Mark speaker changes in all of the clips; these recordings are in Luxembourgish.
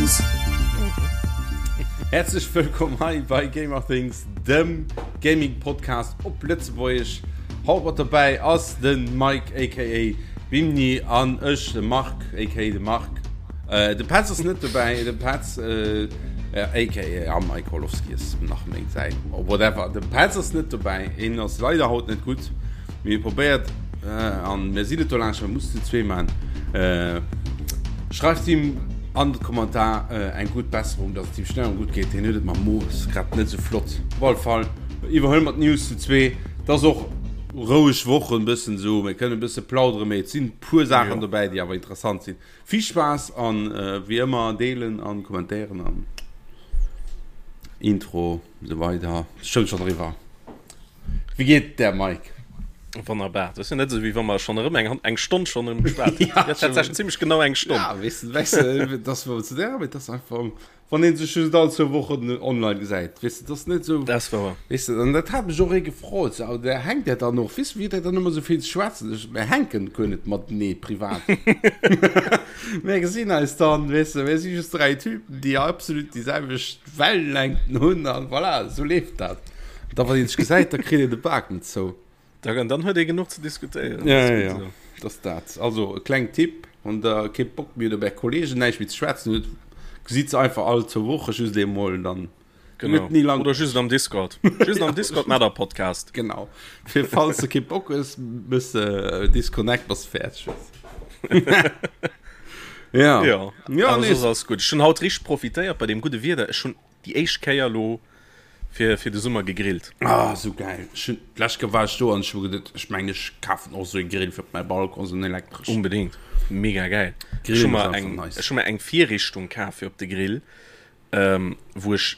Speaker 1: Things.
Speaker 2: Häerzlech wëllkomm hei bei Gamer Things, dem Gaming Podcast op Lëtzebuergesch. Haut mat dobäi ass de Mike aka Bimni an ech, de Marc aka de Marc. Äh, de Petz ass net dobäi, de Petz äh, aka ja, Mike Holowski ass nach méi säin whatever. De Petz ass net dobäi, hien ass leider haut net gutt. Mir probéiert äh, an mir sinn et do laanscht, mir mussen zu zwee man. Äh, schreift him an de Kommentar äh, eng gutt Besserung, dass et him schnell an gutt geet. Hien huet et mam Mo, ass grad net sou flott. Op alle Fall iwwerhuele mer d'News zu zwee. Et ass och roueg Woch en bëssen esou, mir kënnen e bësse plauderen, mee et sinn puer Saachen dobäi, déi awer interessant sinn. Vill Spaass an äh, wéi ëmmer deelen an kommentéieren an Intro esou weider. Stoung schonn eriwwer. Wéi geet et där, Mike?
Speaker 3: Wonnerbar. Dat ass jo net esou, wéi wa mer schonn erëm eng, eng Stonn schonn erëm geschwat hätten. Ja, tatsächlech zimmlech genau eng Stonn.
Speaker 2: Ja, weess de, weess de, dass mer zu där, mee dat ass einfach, wann ee sech just all zwou Wochen online gesäit, weess de, dat ass net esou.
Speaker 3: Dat ass wouer.
Speaker 2: Weess de, an dat hat mech och ee gefrot, sou, der hänkt der dann och, weess de, wéi huet der dann ëmmer esou vill ze schwätzen? Ech, Mir hänken guer net matenee privat. Mir gesinn eis dann, weess de, mir si just dräi Typen, déi absolut déi selwecht Wellenlängten hunn an voilà, esou leeft dat. Da wann een sech gesäit, da kritt een de Bak net zou.
Speaker 3: Da, dann huet ee genuch ze diskutéieren.
Speaker 2: Ja, ja, ja. Dat ass dat. Also e kleng Tipp, wann der kee Bock méi hutt op är Kollegen, näischt méi ze schwätzen hutt, gesitt se einfach all zwou Woche just eemol, dann
Speaker 3: Genau.
Speaker 2: ni lang.
Speaker 3: Oder just am Discord. Just am Discord mat der Podcast.
Speaker 2: Genau. Fir falls de kee Bock hues, mëss de Disconnect, bass de fäerdeg.
Speaker 3: Ja. Ja, ja nee. Soss ass gutt. Ech hunn haut richteg profitéiert bei deem gudde Wieder. Ech hunn déi éischt Kéier elo fir, fir de Summer gegrillt.
Speaker 2: Ah, sou gäil. Ech hunn, d'lescht Kéier war ech do an ech hu geduet, ech mengen ech kafen och sou e Grill fir op mäi Balcon, sou en elektreschen.
Speaker 3: Unbedingt. Mega gäil. Ech hu mer eng, ech hu mer eng Virrichtung kaf fir op de Grill, ähm, wou ech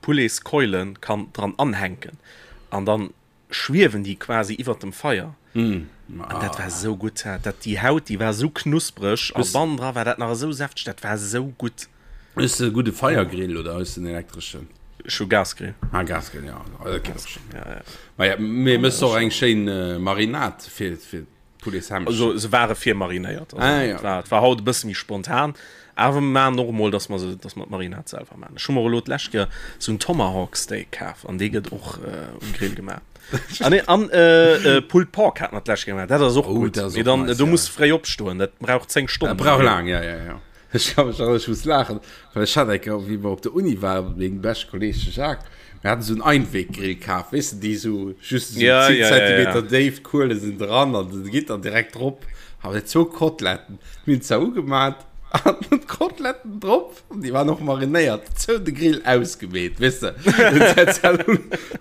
Speaker 3: Pouletskeulen kann dran anhänken an dann schwiewen déi quasi iwwert dem Feier.
Speaker 2: Mm.
Speaker 3: An dat war esou gutt. Dat, déi Haut, déi war esou knuspreg a bannendra war dat nach esou säfteg, dat war esou gutt.
Speaker 2: Hues de e gudde Feiergrill oder hues de en elektreschen?
Speaker 3: Ech hu Gasgrill.
Speaker 2: Ah, Gasgrill, ja. Dat geet och schonn.
Speaker 3: Ja, ja.
Speaker 2: Ma ja, mee mëss och eng schéin Marinade fir, fir
Speaker 3: Pouletshämmchen. Also se ware virmarinéiert. Also, ah, ja. war, et war haut e bësse méi spontan. Awer mir maachen och emol, dass mer se, dass mer d'Marinade selwer maachen. Ech hu mer elo d'lescht Kéier sou en Tomahawk Steak kaf an dee gëtt och äh, um Grill gemaach. An, nee, an äh, äh, Pulled Pork hat mer d'lescht Kéier gemaach. Dat ass och
Speaker 2: Oh,
Speaker 3: gutt.
Speaker 2: dat ass
Speaker 3: Mee
Speaker 2: och
Speaker 3: dann,
Speaker 2: nice,
Speaker 3: do
Speaker 2: ja.
Speaker 3: muss fréi opstoen. Dat brauch 10 Stonnen.
Speaker 2: Dat brauch laang, ja, ja, ja. Ech ka mech erënneren, ech muss laachen, well ech hat eng Kéier, wéi mer op der Uni waren, mat mengem beschte Kolleeg, de Jacques, mir haten esou en Einweggrill kaf, weess de, déi esou just esou
Speaker 3: Ja,
Speaker 2: 10
Speaker 3: ja, ja, ja.
Speaker 2: Zentimeter déif, d'Kuele sinn dran an se geet dann direkt drop. A mir zwou Koteletten, mir hunn zwar ugemat an d'Koteletten drop, an déi waren och marinéiert, zou de Grill ausgemeet, weess de.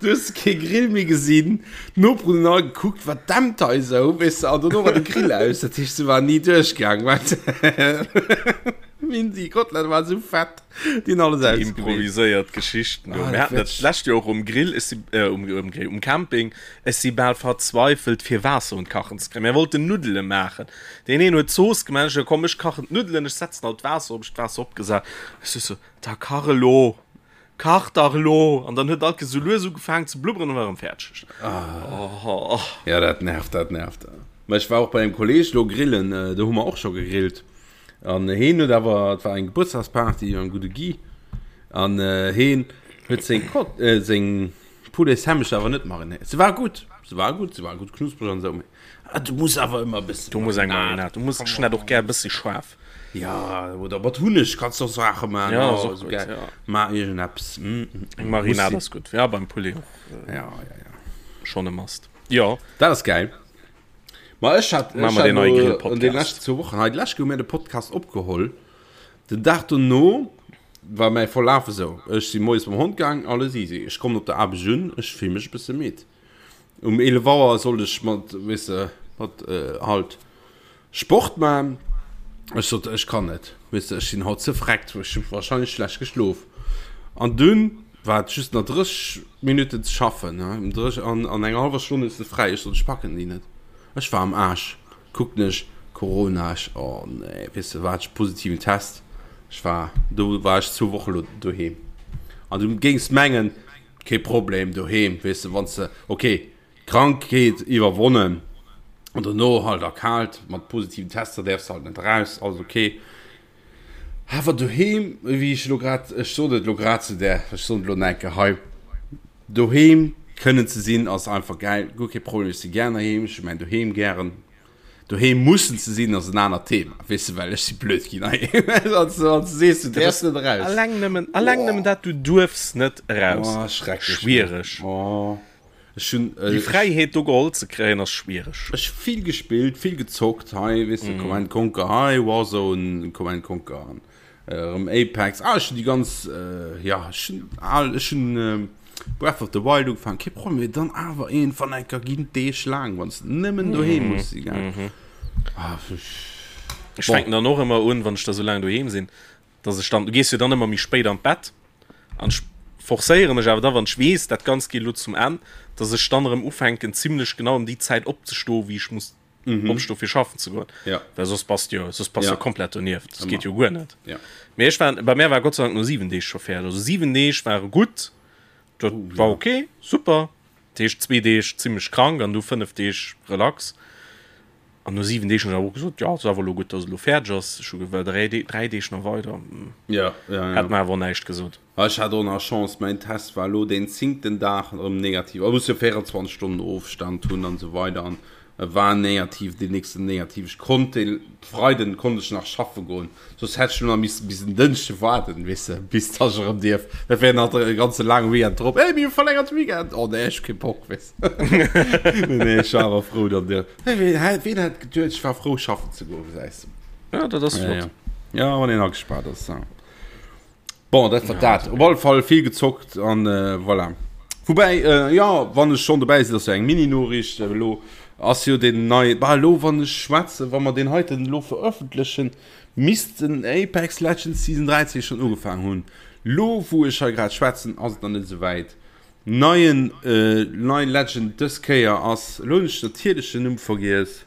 Speaker 2: Du hues kee Grill méi gesinn, d'Noperen hunn all gekuckt, wat dämpt hei esou, weess de, an dono war de Grill aus, dat heescht, se waren ni duerchgaang, well déi Kotelette waren esou fett, déi hunn alles
Speaker 3: Déi
Speaker 2: ausgemeet.
Speaker 3: improviséiert Geschichten do.
Speaker 2: Ah,
Speaker 3: Mir
Speaker 2: dat
Speaker 3: haten dat
Speaker 2: wär.
Speaker 3: d'lescht Joer och um Grill, ech si, äh, um, um Grill, um Camping, ech si bal verzweifelt, fir Waasser un d'Kachen ze kréien. Mir wollten Nuddele maachen. Deen een huet d'Zooss gemaach, ech sou, komm, ech kachen d'Nuddelen, ech setzen alt d'Waasser op, ech d'Waasser opgesat, ech sou, sou, da kach elo! Kach dach elo! An dann huet alt esou lues ugefaangen ze blubberen an war erëm fäerdeg.
Speaker 2: Oh. Ja, dat nervt, dat nervt. Ma ech war och bei engem Kolleeg lo grillen, do hu mer och scho gegrillt. An heen huet awer, et war eng Gebuertsdagsparty beim gudde Guy, an heen huet seng Kot, seng Poulets-Hämmech awer net marinéiert. Se war gutt, se war gutt, se war gutt knuspreg an esou, mee du muss awer ëmmer e bësse
Speaker 3: Du muss eng Marinade, du muss, ech hunn dat och gär e bëssi schaarf.
Speaker 2: Ja, oder mat Hunneg kannst du och Saache man.
Speaker 3: Ja,
Speaker 2: oh,
Speaker 3: ass och
Speaker 2: so
Speaker 3: gutt,
Speaker 2: geil.
Speaker 3: ja.
Speaker 2: Ma irgendeppes. Mm, mm,
Speaker 3: Eng Marinade ass gutt. Ja, beim Poulet och.
Speaker 2: Äh, ja, ja, ja.
Speaker 3: Schon e Must. Ja.
Speaker 2: Dat ass geil. Ma ech hat,
Speaker 3: Machen
Speaker 2: ech
Speaker 3: wir
Speaker 2: hat
Speaker 3: den neuen
Speaker 2: lo
Speaker 3: Grill-Podcast.
Speaker 2: an den leschten zwou Wochen, hei d'lescht Kéier hu mir de Podcast opgeholl. Den Dag dono war mäi Verlaf esou. Ech si moies mam Hond gaang, alles easy. Ech kommen op der Aarbecht un, ech fill mech e bësse midd. Um 11 Auer sollt ech mat, weess de, mat äh, halt Sport man. Ech sot, ech kann net, weess de, ech sinn haut ze vreckt, ech hu wahrscheinlech schlecht geschlof. An dunn war et just nach 30 Minutten ze schaffen, ne, um 30, an, an enger hallwer Stonn hues de fräi. Ech sot, ech packen déi net. Ech war am Aarsch. Kucken ech, Corona, ech, oh nee, weess de, war ech positiven Test. Ech war, do war ech zwou Woche lo doheem. An du géings mengen, kee Problem doheem, weess de, wann s de, okay, Krankheet iwwerwonnen an dono halt erkaalt mat positiven Tester däerfs halt net eraus, alles ok. Awer doheem, wéi ech elo grad, ech sot et elo grad zu där, ech soen et elo nach eng Kéier hei, doheem kënnen ze sinn ass einfach gäil, guer kee Problem, ech si gären heiheem, ech hu mäin Doheem gären. Doheem mussen ze sinn ass en anert Thema, weess de, well ech si blöd ginn heiheem, wann s du sees, du däerfs net eraus.
Speaker 3: Alleng nëmmen, alleng nëmmen dat, du duerfs net eraus,
Speaker 2: Oh, schrecklech,
Speaker 3: schwiereg.
Speaker 2: Oh. Ech hunn
Speaker 3: Déi Fräiheet do geholl ze kréien ass schwiereg.
Speaker 2: Ech hu vill gespillt, vill gezockt hei, weess de, Command Conquer hei, Warzone, Command Conquer an erëm Apex. Ah, ech hunn déi ganz, jo, ech hunn al, ech hunn Breath of the Wild ugefaangen, kee Problem, mee dann awer iergendwann eng Kéier ginn d'Deeg laang, wann s de nëmmen doheem muss si, gell.
Speaker 3: Ah, Ech fänken dann och ëmmer un, wann ech da sou laang doheem sinn, dass ech dann, du gees jo dann ëmmer méi spéit an d'Bett an ech forcéiere mech awer da, wann ech weess, dat Ganzt geet elo zum Enn, dass ech dann erëm ufänken zimlech genau ëm déi Zäit opzestoen, wéi ech muss opstoen, fir schaffen ze goen, well soss bass de jo, soss bass de jo komplett donieft, dat geet jo guer net. Mee ech war, bei mär war Gott sei Dank no 7 Deeg scho fäerdeg, also 7 Deeg ware gutt, dat war ok, super, dat heescht zwee Deeg zimlech krank an du 5 Deeg relax. An no 7 Deeg hunn ech awer och gesot, jo, ass awer elo gutt, dass et elo fäerdeg ass. Ech hu gewëll 3 Deeg, 3 Deeg nach weider,
Speaker 2: Ja, ja, ja.
Speaker 3: hätt mer awer och näischt gesot.
Speaker 2: Ah, ech hat och nach Chance, mäin Test war elo deen zéngten Dag erëm negativ. A muss jo 24 Stonnen Ofstand hunn an esou weider an e war negativ, deen nächsten negativ. Ech konnt dee Freiden konnt ech nach schaffe goen, soss hätt ech elo nach missen bis en Dënschde waarden, weess de, bis dass ech erëm dierf. Dat wär nach e ganze laange Weekend drop. Hey, mir hu verlängerte Weekend! Oh nee, ech hu kee Bock, weess. Nee, ech war awer frou dann dir. Hey, ween, hä, ween hätt geduet, ech war frou schaffen ze goen, gesäis
Speaker 3: de. Ja, dat ass
Speaker 2: flott. Ja, ja. ja wann een agespaart ass. Ja. Bon, dat war ja, dat. Op alle Fall vill gezockt an äh, voilà. Woubäi, äh, ja, wann ech schon dobäi sinn, ass jo eng Mini-Noriicht äh, elo ass jo den nei, bah, elo wann ech schwätzen, wa mer den heiten elo veröffentlechen, misst den Apex Legends Season 13 schon ugefaangen hunn. Lo wou ech hei grad schwätzen, ass et nach net esou wäit. Neien nei Legend dës Kéier ass, elo hunn ech natierlech den Numm vergiess,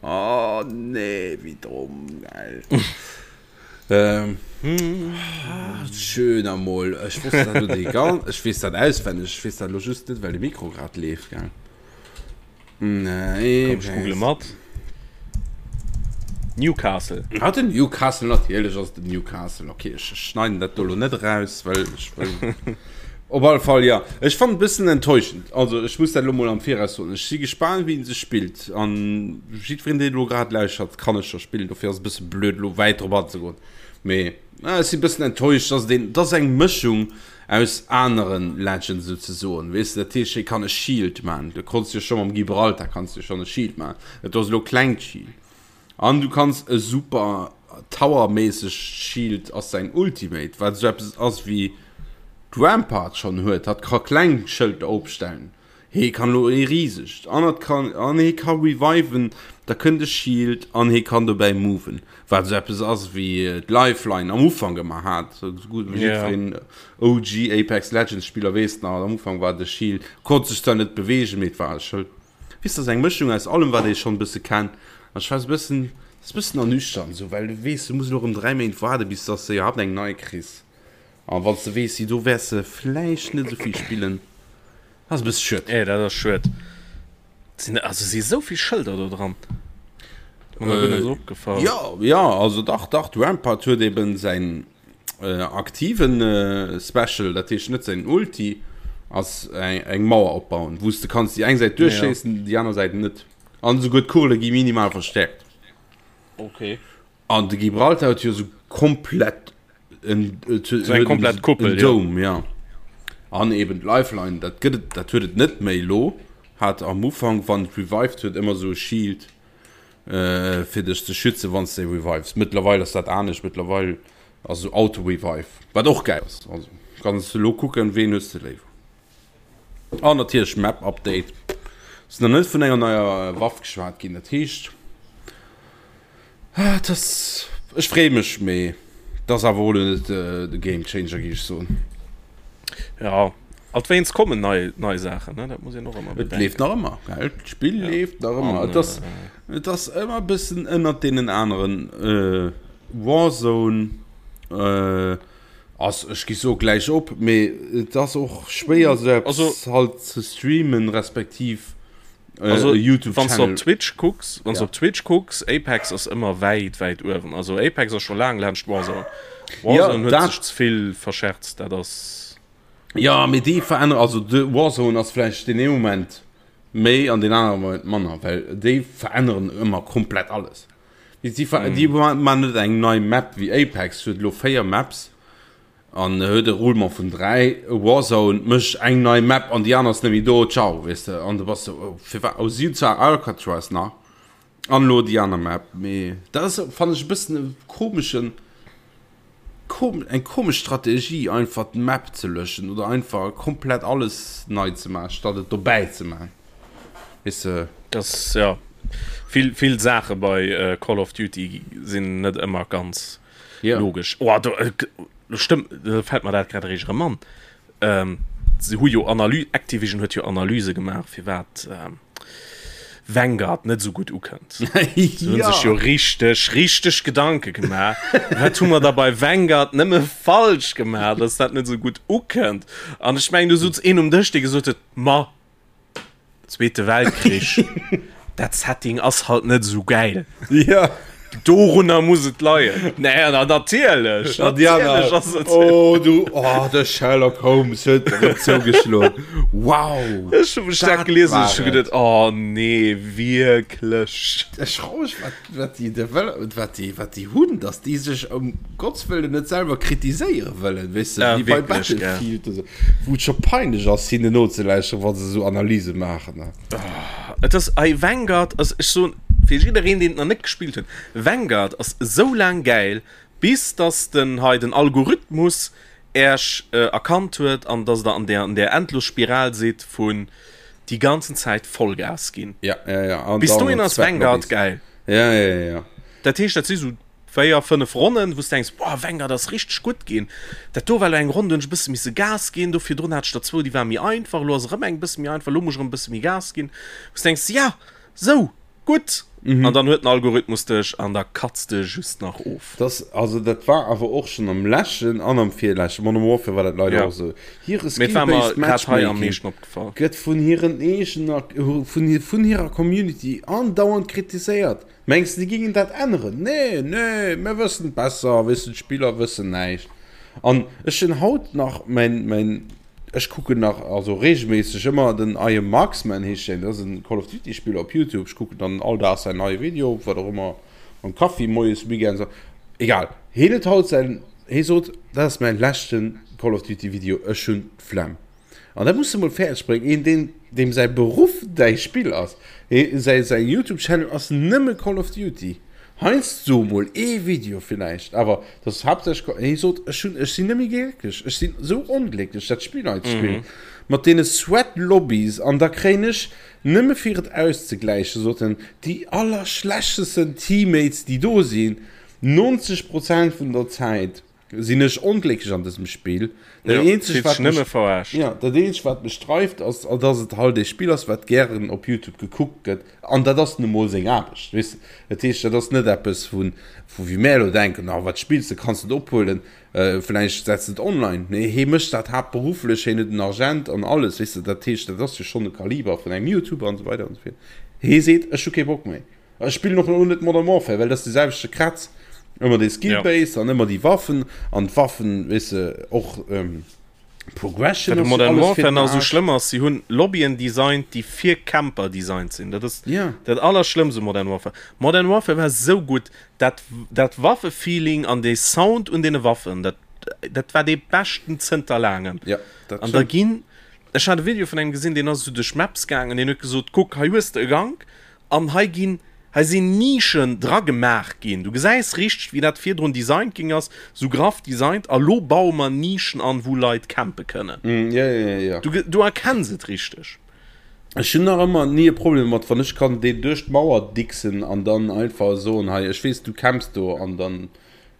Speaker 2: oh nee wéi domm, gell, schön emol, ech wosst dat elo déi ganz, ech weess dat auswenneg, ech weess dat elo just net well de Mikro grad leeft, gell.
Speaker 3: Nee, Komm, ech google mat. Newcastle.
Speaker 2: Ah, den Newcastle, natierlech ass et den Newcastle. Okay, ech schneiden dat do lo net eraus, well ech wëll. Op alle Fall, ja. Ech fannen et bëssen enttäuschend. Also, ech muss dat elo mol am Viraus soen. Ech si gespaant, wéi en sech spillt. An jiddwereen, deen elo grad lauschtert, kann e scho spillen. Dofir ass et e bësse blöd, elo wäit drop anzegoen. Mee ech si bëssen enttäuscht, dass et een, et ass eng Mëschung aus aneren Legends souzesoen, weess de, dat heescht hie kann e Shield man, du konns jo scho mam Gibraltar kanns du schonn e Shield man, dat do ass elo klengt Shield an du kanns e super Tower-méissegt Shield ass säin Ultimate, wat esou eppes ass wéi d'Rampart schonn huet, hatt ka kleng Schëlter opstellen. Hee kann elo ee risegt an et kann an hee ka reviven, da kënnt e Shield an hee kann dobäi moven, wat esou eppes ass wéi d'Lifeline am Ufank ëmmer hat. Esou gutt wéi jiddwereen OG Apex Legends Spiller weess nach, am Ufank war de Shield, konnt sech zwar net beweegen, mee et war e Schëld. Weess, dat ass eng Mëschung aus allem wat ee schonn e bësse kennt an ech war esou e bëssen, dat ass e bëssen ernüchternd esou, well du weess, du muss elo erëm 3 Méint waarde bis dass de iwwerhaapt eng nei kriss an wann s de weess, déi do wäers de vläicht net esou vill spillen. Ass e bësse schued.
Speaker 3: Eh, dat ass schued. Sinn, also si sou vill Schëlder do dran. Mir nach guer net esou opgefall.
Speaker 2: Jo, jo, also dach, dach, de Rampart huet eben säin äh, aktiven äh, Special, dat heescht net säin Ulti, ass eng, eng Mauer opbauen, wou s de kanns déi eng Säit duerchschéissen, déi aner Säit net. An esouguer d'Kugele gi minimal verstäerkt.
Speaker 3: Okay.
Speaker 2: An de Gibraltar huet jo sou komplett en,
Speaker 3: so eng komplett Kuppel,
Speaker 2: en Dome, ja. An eben d'Lifeline, dat gëtt et, dat huet et net méi elo. Hat am Ufank, wann et revived huet, ëmmer sou e Shield äh, fir dech ze schützen, wann s de revives. Mëttlerweil ass dat anescht, mëttlerweil ass esou Auto-Revive, wat och gäil ass. Also kanns de elo kucken, ween hues de léiwer. An natierlech Map Update. Ass nach net vun enger neier Waff geschwat ginn, dat heescht et ass, ech freeë mech, mee et ass awer och elo net de Game Changer géif ech soen.
Speaker 3: Ja, alt wéinst kommen nei nei Saachen, ne, dat muss een och ëmmer
Speaker 2: bedenken. Et leeft nach ëmmer, gell, d'Spill leeft nach ëmmer. Et ass et ass ëmmer e bëssen ënnert deenen aneren Warzone. Ass, ech gi soe gläich op, mee et ass och schwéier sou eppes halt ze streamen, respektiv.
Speaker 3: Also, YouTube wann du op Twitch kucks, wann ja. op Twitch kucks, Apex ass ëmmer wäit wäit uewen. Also Apex ass scho laang laanscht Warzone. Warzone ja, huet sech ze vill verscherzt, dat ass.
Speaker 2: Ja, mee déi veränneren, also de Warzone ass vläicht den ee Moment méi an den anere Moment manner, well déi veränneren ëmmer komplett alles. Déi, déi, mm. déi man net eng nei Map wéi Apex huet lo 4 Maps an huet e Roulement vun 3. Warzone mécht eng nei Map an déi aner ass net méi do, ciao, weess de. An du bass sou, oh, firwat? Oh, si hunn zwar Alcatraz nach an elo déi aner Map, mee dat ass, fannen ech, e bëssen e komeschen, kom, eng komesch Strategie, einfach d'Map ze löschen oder einfach komplett alles nei ze maachen, statt et dobäi ze maachen, weess de.
Speaker 3: Das, ja, vill, vill Saache bei Call of Duty sinn net ëmmer ganz.
Speaker 2: Ja.
Speaker 3: Logesch. Oh, do, äh, stëmmt, da fällt mer dat grad eréischt erëm an. Ähm, se hu jo Analy Activision huet jo Analyse gemaach, firwat ähm, Vanguard net esou gutt ukënnt. Se hunn
Speaker 2: ja.
Speaker 3: sech jo richteg, richteg Gedanke gemaach. Wat hu mer da bei Vanguard nëmme falsch gemaach, dass dat net esou gutt ukënnt? An ech mengen, du sutz een um Dësch, dee gesot huet, Ma, Zweete Weltkrich, dat Setting ass halt net esou gäil.
Speaker 2: Ja.
Speaker 3: Dorunner muss et leien. Nee, na, natierlech. Natierlech ass et.
Speaker 2: Oh, du, oh, de Sherlock Holmes huet erëm zougeschloen. Wow.
Speaker 3: Ech hu mech dat gelies an ech hu geduet, oh nee, wierklech.
Speaker 2: Ech froe mech, wat, wat déi Develop, wat déi, wat déi hunn, dass déi sech ëm Gotts Wëllen net selwer kritiséiere wëllen, weess de,
Speaker 3: Ja,
Speaker 2: wéi bei
Speaker 3: wierklech, gell.
Speaker 2: Battlefield oder sou, wou et scho peinlech ass, hinnen nozelauschteren, wa se sou Analyse maachen.
Speaker 3: Et ass ei Vanguard ass, ech soen fir jiddereen, deen et nach net gespillt huet, Vanguard ass esou laang gäil, bis dass den hei den Algorithmus Äerch erkannt huet an dass der an der an der endlos Spiral sidd vun déi ganzen Zäit Vollgas ginn.
Speaker 2: Ja, ja, ja. An
Speaker 3: Bis
Speaker 2: dann
Speaker 3: dohin ass
Speaker 2: Sweat
Speaker 3: Vanguard
Speaker 2: Lobbies.
Speaker 3: gäil.
Speaker 2: Ja, ja, ja, ja.
Speaker 3: Dat heescht, dat si sou 4, 5 Ronnen, wou s de denks, Boah, Vanguard ass richteg gutt ginn. Dat do war elo eng Ronn, do hunn ech e bësse misse Gas ginn. Do virdrun hat ech der zwou, déi ware méi einfach. Elo ass erëm eng e bësse méi einfach, elo muss ech erëm e bësse méi Gas ginn. Wou s de denks, Ja, sou gutt! An dann huet den Algorithmus dech an da katz de just nach of.
Speaker 2: Das, also dat war awer och schonn am leschten an am virleschte Modern Warfare war dat leider
Speaker 3: Ja.
Speaker 2: och esou. Hire
Speaker 3: Mee et war mer
Speaker 2: Skill-based
Speaker 3: grad hei am
Speaker 2: Matchmaking
Speaker 3: meeschten opgefall.
Speaker 2: gëtt vun hiren eegener, vun, vun hirer Community andauernd kritiséiert. Mengs de, déi gingen dat änneren? Nee, nee, mir wëssen et besser, weess de, d'Spiller wëssen näischt. An ech hunn haut nach mäin, mäin, ech kucken nach, also reegelméisseg ëmmer den I am Marksman heescht deen, dat ass en Call of Duty Spiller op Youtube, ech kucken dann all Dag säin neie Video, wat och ëmmer, mam Kaffi moies, weekends, egal. Hien huet haut säin, hie sot, dat ass mäin leschten Call of Duty Video, ech hunn d'Flemm. An dat muss de mol fäerdeg bréngen, een deen deem säi Beruff däi Spill ass, säi säi Youtube Channel ass nëmme Call of Duty, heiansdo mol ee Video villäicht, awer dat ass haaptsächlech, hie sot ech hunn ech sinn net méi glécklech, ech sinn esou onglécklech dat Spill hei ze spillen mat deene Sweat Lobbies an da kréien ech nëmme fir et auszegläichen, sot en, déi allerschlechtesten Teammates déi do sinn, 90 Prozent vun der Zäit. Sinn ech onglécklech an dësem Spill. Dat
Speaker 3: Ja,
Speaker 2: eenzegt,
Speaker 3: fillt
Speaker 2: wat
Speaker 3: sech nëmme
Speaker 2: mech,
Speaker 3: verarscht.
Speaker 2: ja, dat eenzegt, wat mech dreift, ass, dass et halt ee Spill ass, wat gären op YouTube gekuckt gëtt. An dat ass nu mol seng Aarbecht, weess de. Dat heescht, dat ass net eppes, vu, vu wéi mär elo denken, ah, wat spills de, kanns de et ophuelen, vläicht setz de et online. Nee, hee mécht dat haaptberufflech, hien huet en Agent an alles, weess de. Dat heescht, dat ass jo schonn e Kaliber vun engem YouTuber an esou weider an esou fort. Hee seet, ech hu kee Bock méi. Ech spillen och elo net Modern Warfare, well dat ass de selwechte Kratz. Ëmmer dee Skill Base an ëmmer déi Waffen an d'Waffen, weess de, och Progression
Speaker 3: Wat u
Speaker 2: ass jo
Speaker 3: Modern
Speaker 2: alles fir
Speaker 3: Warfare
Speaker 2: den
Speaker 3: nach esou
Speaker 2: Aarsch.
Speaker 3: schlëmm ass, si hunn Lobbyen designt, déi fir Camper designt sinn. Dat ass
Speaker 2: Ja.
Speaker 3: dat Allerschlëmmst u Modern Warfare. Modern Warfare war esou gutt, dat, dat Waffefeeling an dee Sound un deene Waffen, dat, dat war dee beschten zënter laangem.
Speaker 2: Ja, dat
Speaker 3: An da
Speaker 2: stimmt.
Speaker 3: ginn, ech hat e Video vun engem gesinn, deen ass esou duerch Maps gaangen, deen huet gesot, kuck, hei hues de e Gank, An hei ginn, hei sinn Nischen dra gemaach ginn. Du gesäis richteg, wéi dat virdrun designt ginn ass, sou graff designt. A lo baue mer Nischen an, wou Leit campe kënnen.
Speaker 2: Ja, ja, ja.
Speaker 3: Du, du erkenns et richteg.
Speaker 2: Ech hunn nach ëmmer ni e Problem domat, wann ech kann deen duerch d'Mauer dixen an dann einfach soen, hei, ech weess, du camps do, an dann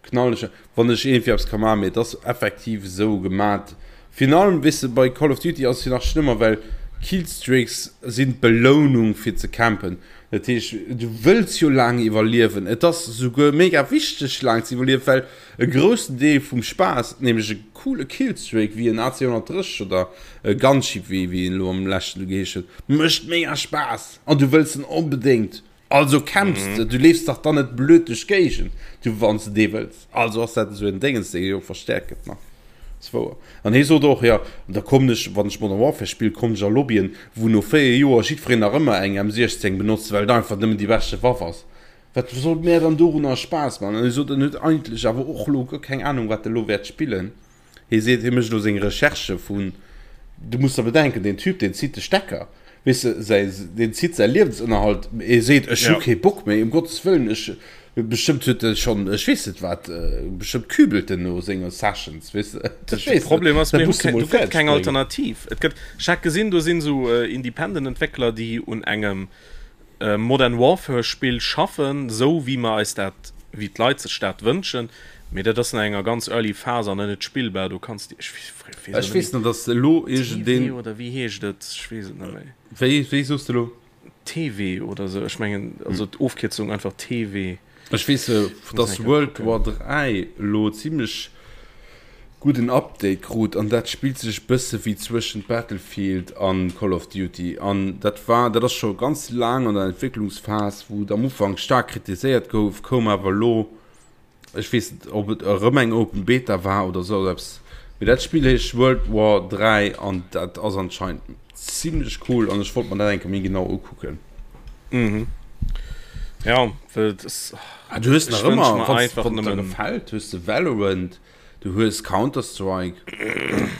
Speaker 2: knallen ech, wann ech iergendwéi eppes ka maachen. Mee et ass effektiv esou gemat. Virun allem, weess de, bei Call of Duty ass et jo nach schlëmmer, well Killstreaks sinn d'Belounung fir ze campen. Dat heescht, du wëlls jo laang iwwerliewen. Et ass souguer mega wichteg, laang ze iwwerliewen, well e groussen Deel vum Spaass, nämlech e coole Killstreak wéi en AC 130 oder e Gunship, wéi wéi en elo am leschten do geheescht huet, mécht mega Spaass an du wëlls en onbedéngt. Also kämpfs de, du leefs dach dann net blöd duerch d'Géigend, du wann s de dee wëlls. Also ass dat esou en Déngens, dee jo verstäerkt gëtt nach. Ass wouer. An hie sot och, jo, an da kommen ech, wann ech Modern Warfare spillen, kommen ech a Lobbyen, wou no 4 Joer jiddwereen nach ëmmer eng M16 benotzt, well et einfach nëmmen déi beschte Waff ass. Wat soll mär dann dorunner Spaass man? An hie sot, en huet eigentlech awer och elo guer keng Anung, wat e lo wäert spillen. Hie seet, hie mécht elo seng Recherchë vun, du muss der bedenken, deen Typ, deen zitt de Stecker, weess de, säi, deen zitt säi Liewensënnerhalt. Hie seet, ech hu kee Bock méi, ëm Gottes Wëllen, ech, bestëmmt huet e schonn, ech weess net wat, bestëmmt kübelt en no senge Sessions, weess de, ech
Speaker 3: weess net. De Problem ass, mir hu keng, do gëtt keng Alternativ. Et gëtt, ech hat gesinn, do sinn esou Independent-Entwéckler, déi un engem Modern Warfare Spill schaffen, esou wéi mer eis dat, wéi d'Leit sech dat wënschen, mee dat ass nach enger ganz early Phase an net spillbar, do kanns de, ech
Speaker 2: weess Ech weess net, dass elo iergendeen.
Speaker 3: TV oder wéi heescht et, ech weess et net méi.
Speaker 2: Wéi, wéi soos de elo?
Speaker 3: TV oder esou, ech mengen, also d'Ofkierzung einfach TV.
Speaker 2: Ech weess, dass World War 3 elo zimlech gudden Update krut an dat spillt sech bësse wéi zwëschent Battlefield an Call of Duty an dat war, dat ass scho ganz laang an der Entwécklungsphas, wou et am Ufank staark kritiséiert gouf, koum awer elo, ech weess net ob et erëm eng Open Beta war oder sou eppes, mee dat Spill heescht World War 3 an dat ass anscheinend zimlech cool an ech wollt mer dat eng Kéier méi genau ukucken.
Speaker 3: Mhm. Ja, well et ass,
Speaker 2: Ah, du hues nach ëmmer, wann et der gefält, hues de Valorant, du hues Counter-Strike.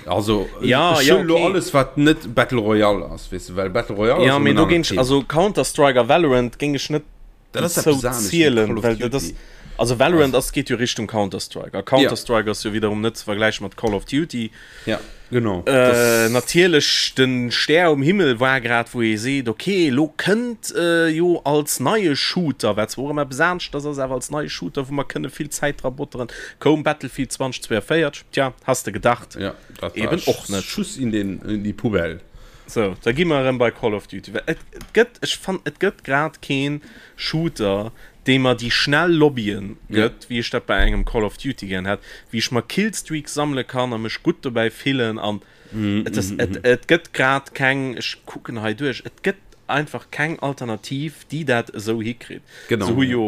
Speaker 2: Also,
Speaker 3: ja,
Speaker 2: ech
Speaker 3: ja,
Speaker 2: hunn elo
Speaker 3: okay.
Speaker 2: alles, wat net Battle Royale ass, weess de, well Battle Royale
Speaker 3: Ja,
Speaker 2: ass
Speaker 3: mee
Speaker 2: erëm en
Speaker 3: do géing
Speaker 2: anert
Speaker 3: ech,
Speaker 2: Thema.
Speaker 3: also Counter-Strike a Valorant géing ech net
Speaker 2: Dat ass
Speaker 3: dozou
Speaker 2: eppes anescht wéi
Speaker 3: zielen,
Speaker 2: Call of
Speaker 3: well dat ass,
Speaker 2: Duty.
Speaker 3: also Valorant ass, geet jo Richtung Counter-Strike a
Speaker 2: Ja.
Speaker 3: Counter-Strike ass jo wiederum net ze vergläiche mat Call of Duty.
Speaker 2: Ja, genau.
Speaker 3: Äh, natierlech, den Stär um Himmel war grad, wou ee seet, okay, elo kënnt jo als neie Shooter, wat zwar och ëmmer eppes aneschters ass, awer als neie Shooter, wou mer kënne vill Zäit dra botteren, koum Battlefield 2042. Tja, has de gedacht?
Speaker 2: Ja, dat war
Speaker 3: Eben och net.
Speaker 2: Schuss in den, in die Poubelle.
Speaker 3: Sou, da gi mer erëm bei Call of Duty. Well et, et gëtt, ech fannen, et gëtt grad keen Shooter, dee mer déi schnell Lobbyen gëtt, wéi ech dat bei engem Call of Duty gären hätt, wéi ech mer Killstreaks sammele kann a mech gutt dobäi fillen an et ass, et, et gëtt grad keng, ech kucken hei duerch, et gëtt einfach keng Alternativ, déi dat esou hikritt.
Speaker 2: Genau.
Speaker 3: Se hu jo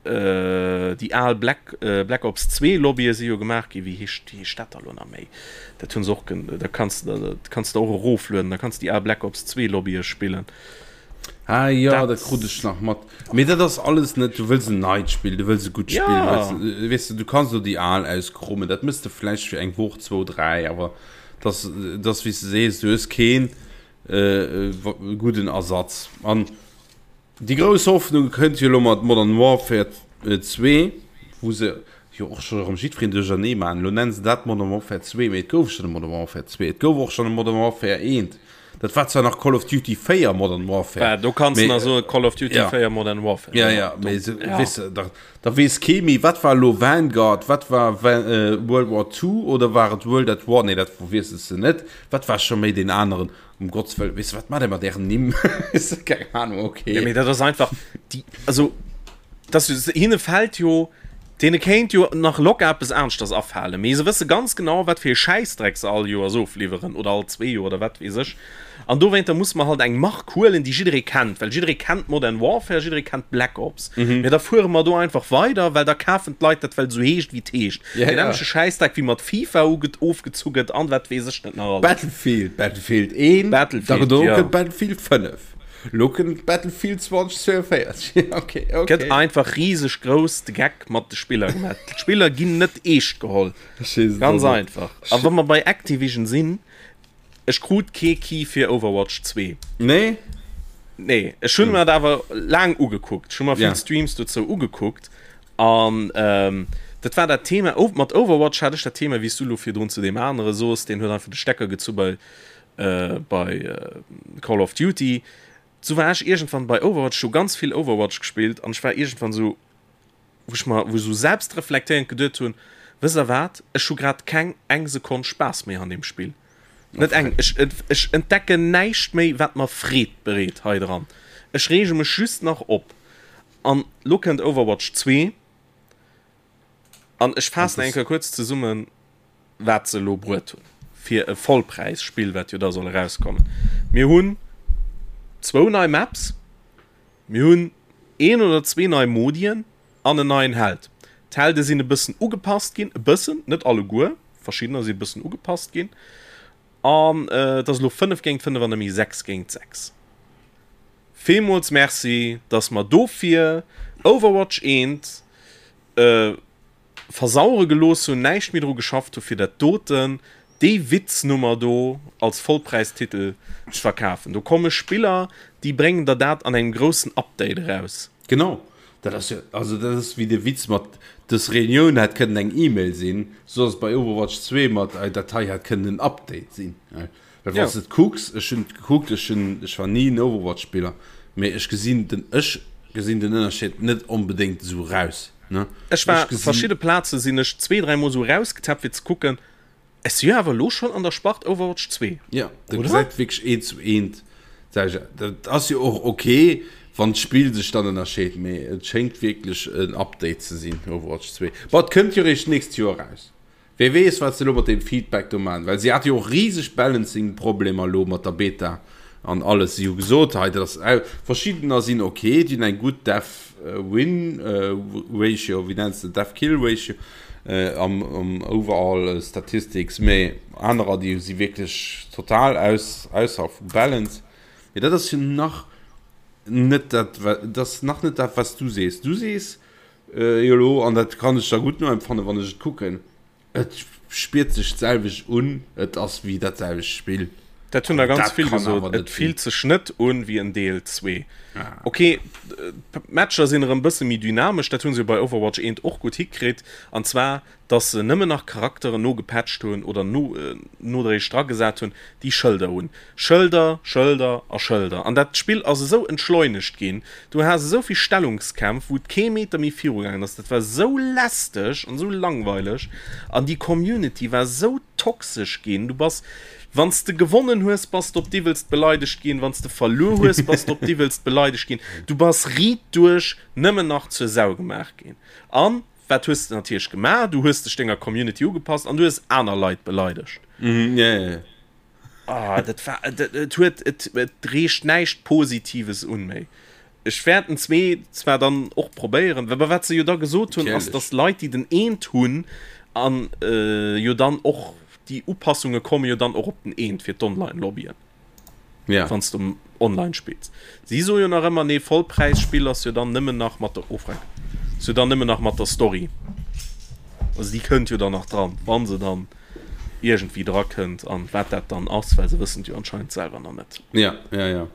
Speaker 3: déi al Black, Black Ops 2 Lobbye si jo gemaach ginn, wéi heescht, wéi heescht dat da lo nach méi? Dat hunn se och, da kanns de, dat kanns de och eroflueden, da kanns de déi al Black Ops 2 Lobbye spillen.
Speaker 2: Ah jo, dat krut ech nach mat. Mee dat ass alles net, du wëlls en neit Spill, du wëlls e gutt Spill,
Speaker 3: Ja.
Speaker 2: wëlls, weess de, du kanns elo déi al auskrummen, dat mëss de vläicht fir eng Woch, zwou, dräi, awer dass, dass wéi s de sees, du hues keen gudden Ersatz. An déi grouss Hoffnung kënnt jo elo mat Modern Warfare 2, wou se jo och scho erëm jiddwereen duerchernee maachen. Elo nennen se dat Modern Warfare 2, mee et gouf schonn e Modern Warfare 2, et gouf och schonn e Modern Warfare 1. Dat war zwar nach Call of Duty 4 Modern Warfare.
Speaker 3: Ja, do kanns du nach soen Call of Duty
Speaker 2: ja.
Speaker 3: 4 Modern Warfare.
Speaker 2: Ja, ja, mee se, ja. Weess de, da, da weess kee méi, wat war elo Vanguard, wat war Van, äh, World War 2 oder war et World at War? Nee, dat verwiesselst de net. Wat war scho méi deen aneren? Um Gottes Wëllen, weess de, wat maacht der mat ären Nimm? Weess de, keng Ahnung, okay.
Speaker 3: Ja, mee dat ass einfach, déi, also, das, hinne fällt jo, Deene kéint jo nach locker eppes aneschters afalen, mee se wësse ganz genau, wat fir ee Schäissdreck se all Joers ofliwweren oder all zwee Joer oder wat weess ech. An dowéinter musse mer halt eng Mark huelen, déi jidderee kennt, well jidderee kennt Modern Warfare, jidderee kennt Black Ops. Mee da fuere mer do einfach weider, well da kafen d'Leit dat, well et esou heescht, wéi et heescht.
Speaker 2: Ja,
Speaker 3: Deen
Speaker 2: ja.
Speaker 3: nämmleche Schäissdreck, wéi mat FIFA uge ofgezu gëtt an wat weess ech net nach alles.
Speaker 2: Battlefield, Battlefield 1,
Speaker 3: Battlefield,
Speaker 2: da
Speaker 3: ja.
Speaker 2: kënnt Battlefield 5. Lo kënnt Battlefield 2042. Okay, okay.
Speaker 3: Gëtt einfach riseg grouss de Geck mat de Spiller gemaach. D'Spiller ginn net eescht geholl. Ganz einfach. A wa mer bei Activision sinn, ech krut kee Key fir Overwatch 2.
Speaker 2: Nee?
Speaker 3: Nee, ech hunn mer dat awer laang ugekuckt. Ech hu mer vill Streams dozou ugekuckt. An dat war dat Thema, mat Overwatch hat ech dat Thema, wéi s du elo virdrun zu deem anere soos, deen huet einfach de Stecker gezu bei bei Call of Duty, sou war ech iergendwann bei Overwatch, ech hu ganz vill Overwatch gespillt an ech war iergendwann sou, wou ech mer, wou ech sou selbstreflektéierend geduet hunn, wësst der wat, ech hu grad keng eng Sekonn Spaass méi an deem Spill. Net eng. Ech, ech entdecken näischt méi, wat mer Freed bereet hei dran. Ech reege mech just nach op. An lo kënnt Overwatch 2. An ech faassen eng Kéier kuerz zesummen, wat se elo bruet hunn fir e Vollpräisspill, wat jo da soll erauskommen. Mir hunn zwou nei Maps, mir hunn een oder zwee nei Modien an en neien Held. D'Helde sinn e bëssen ugepasst ginn, e bëssen, net alleguer, verschiddener si e bëssen ugepasst ginn. An et ass elo 5 géint 5 an net méi 6 géint 6. Villmools Merci, dass mer dofir Overwatch 1 versauere gelooss hunn, näischt méi dru geschafft hu fir dat doten, déi Witznummer do als Vollpräistitel ze verkafen. Do komme Spiller, déi bréngen der dat an engem groussen Update eraus.
Speaker 2: Genau, dat ass jo, also dat ass wéi de Witz mat dës Reunioun hätt kënnen eng E-Mail sinn, sou ass et bei Overwatch 2 mat dat hei hätt kënnen en Update sinn. Well wann s de et kucks, ech hunn et gekuckt, ech hunn, ech war ni en Overwatch-Spiller, mee ech gesinn den, ech gesinn den Ënnerscheed net onbedéngt esou raus, ne?
Speaker 3: Ech war, verschidde Plaze sinn ech zwee, dräi Mol esou rausgetappt fir ze kucken, ech si jo awer elo schonn an der Spart Overwatch 2,
Speaker 2: Jo, dat gesäit wierklech eent zu eent d'selwecht aus. Dat ass jo och ok, wann d'Spill sech dann ënnerscheet, mee et schéngt wierklech en Update ze sinn, Overwatch 2. Bon, et kënnt jo eréischt d'nächst Joer eraus. Wee weess wat se elo mat deem Feedback do maachen, well si hate jo och riseg Balancing Problemer elo mat der Beta an alles. Si hu gesot hei dat ass au, verschiddener sinn ok, déi hunn eng gutt Death Win Ratio, wéi nenns de Death Kill Ratio am am overall Statistics, mee anerer déi si wierklech total aus ausser vu Balance. Mee dat ass jo nach net dat, dat ass nach net dat wat s du sees. Du sees Jo elo, an dat kann ech da gutt noempfannen, wann ech et kucken, et spiert sech d'selwecht un, et ass wéi dat selwecht Spill.
Speaker 3: Dat hunn der ganz vill gesot, et fillt sech net un wéi en Deel 2. Ok, d'Matcher sinn erëm bësse méi dynamesch, dat hu se jo bei Overwatch 1 och gutt hikritt, an zwar dass se nëmmen nach Charakteren nogepatcht hunn oder no nodréiglech dragesat hunn, déi Schëlder hunn. Schëlder, Schëlder a Schëlder. An dat Spill ass esou entschleunegt ginn, du has esou vill Stellungskämpf, wou et kee Meter méi virugaangen ass. Dat war esou lästeg an esou langweileg an déi Community war esou toxesch ginn. Du bass, wann s de gewonnen hues, bass de op d'iwwelst beleidegt ginn, wann s de verluer hues, bass de op d'iwwelst beleidegt ginn. Du bass riit duerch nëmmen nach zur Sau gemaach ginn. An Wat hues de natierlech gemaach? Du hues dech denger Community ugepasst an du hues aner Leit beleidegt.
Speaker 2: Mhm, ja, ja, ja.
Speaker 3: Ah, dat war, dat, et huet, et, et reecht näischt Positives un méi. Ech wäert den zwee zwar dann och probéieren, awer wat se jo da gesot hunn, ass, dass Leit, déi den eent hunn an äh, jo dann och déi Upassunge komme jo dann och op den eent fir d'Online-Lobbyen.
Speaker 2: Ja.
Speaker 3: Wann s du online spills. Si soe jo nach ëmmer, nee, Vollpräisspill ass jo dann nëmmen nach mat der, oh freck, ass jo dann nëmmen nach mat der Story. Also déi kënnt jo dann nach dran, wa se dann iergendwéi dra kënnt an wat dat dann ass, well se wëssen et jo anscheinend selwer nach net.
Speaker 2: Ja, ja, ja.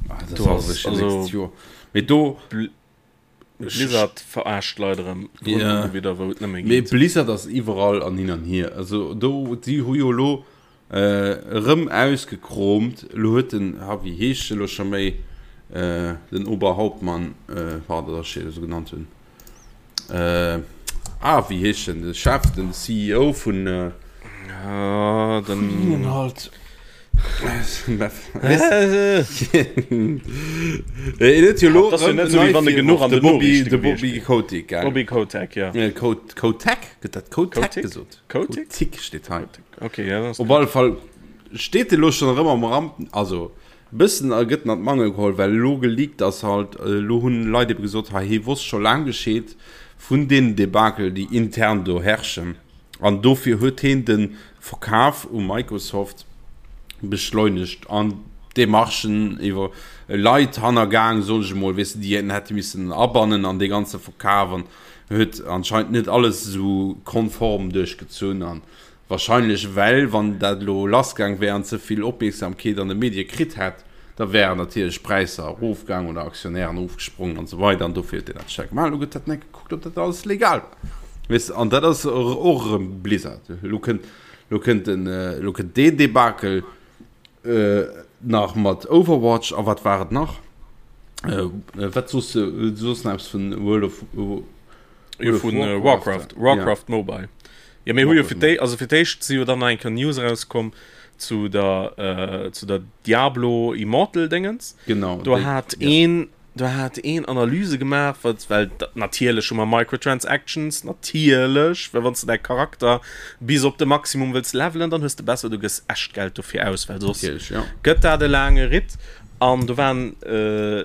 Speaker 2: Ah, dat
Speaker 3: Do
Speaker 2: ass
Speaker 3: ass
Speaker 2: also
Speaker 3: also
Speaker 2: Joer. Mee do.
Speaker 3: Blizzard verarscht d'Leit erëm drun
Speaker 2: Ja.
Speaker 3: ugewidder wou et nëmme
Speaker 2: Mee
Speaker 3: geet.
Speaker 2: Blizzard ass iwwerall an hin an hier. Also do, si hu jo elo erëm ausgekroomt. Elo huet den, ha wéi heescht e lo scho méi, den Oberhauptmann, war dat ech esou genannt hunn, ah wéi heescht en, de Chef, den CEO vun,
Speaker 3: Ah, den
Speaker 2: halt. De Bobby de Bobby Kotick gell?
Speaker 3: Bobby Kotick ja.
Speaker 2: Kotek gëtt dat Kotek gesot?
Speaker 3: Kotick
Speaker 2: steet hei.
Speaker 3: Okay, ja,
Speaker 2: Op alle Fall steet e lo schonn erëm am Ramp also bëssen a gëtt en an d'Mangel geholl, well elo geleakt ass halt, elo hunn Leit ebe gesot, hei hie wosst scho laang Bescheed vun deenen Debakel déi intern do herrschen. An dofir huet heen de Verkaf u Microsoft beschleunegt an d'Demarchen iwwer Leit hannergaang, soen ech emol, weess de, déi en hätte missen abannen an dee ganze Verkaf an huet anscheinend net alles esou konform duerchgezunn. An wahrscheinlech, well wann dat elo lassgaang wär an ze vill Opmierksamkeet an de Medie kritt hätt, Da wären natierlech d'Präisser erofgaang oder Aktionären erofgesprongen an esou weider an dofir huet deen dat staark gemaach. Elo gëtt dat net gekuckt, ob dat alles legal war. Weess de, an dat ass och erëm Blizzard. Elo kënnt, elo kënnt den, elo kënnt deen Debakel nach mat Overwatch a wat war et nach? Wat soos de, du soos nach eppes vun World of,
Speaker 3: Jo, vun Warcraft, Warcraft Mobile. Jo, mir hu jo fir déi, also fir d'éischt si jo dann nach eng Kéier News erauskomm zu der, äh, zu der Diablo Immortal Déngens.
Speaker 2: Genau.
Speaker 3: Do hat ja. een, do hat een Analyse gemaach, wat, well natierlech hu mer Microtransactions, natierlech, well wann s de däi Charakter bis op de Maximum wëlls levelen, dann hues de besser, du gëss echt Geld dofir aus, well soss
Speaker 2: Natierlech, ja.
Speaker 3: gëtt dat e laange Ritt. An do waren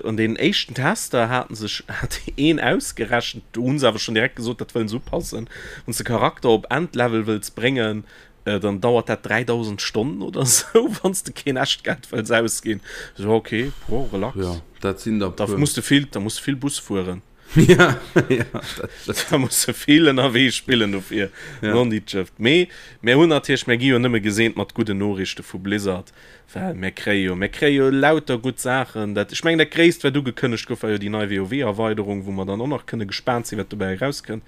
Speaker 3: an deenen éischten Tester haten sech hat een ausgerechent, do hunn se awer schonn direkt gesot, dat wëllen se upassen, wann s de Charakter op Endlevel wëlls bréngen, dann dauert dat 3000 Stonnen oder sou, wann s de keen Echtgeld wëlls ausginn. So ok, boah, relax.
Speaker 2: Jo, dat sinn der
Speaker 3: Da
Speaker 2: puer.
Speaker 3: muss de vill, da muss de vill Bus fueren.
Speaker 2: Ja, ja, dat
Speaker 3: stimmt. Da muss de vill ënnerwee spillen dofir.
Speaker 2: Ja.
Speaker 3: Nonditscheft. Mee mir hunn natierlech, mir gi jo nëmme geseent mat gudden Noriichte vu Blizzard. Well mir kréie jo, mir kréie jo lauter gutt Saachen. Dat, ech mengen, dat Gréisst, wat ugekënnegt gouf, war jo déi nei WoW-Erweiderung, wou mer dann och nach kënne gespaant sinn, wat dobäi erauskënnt.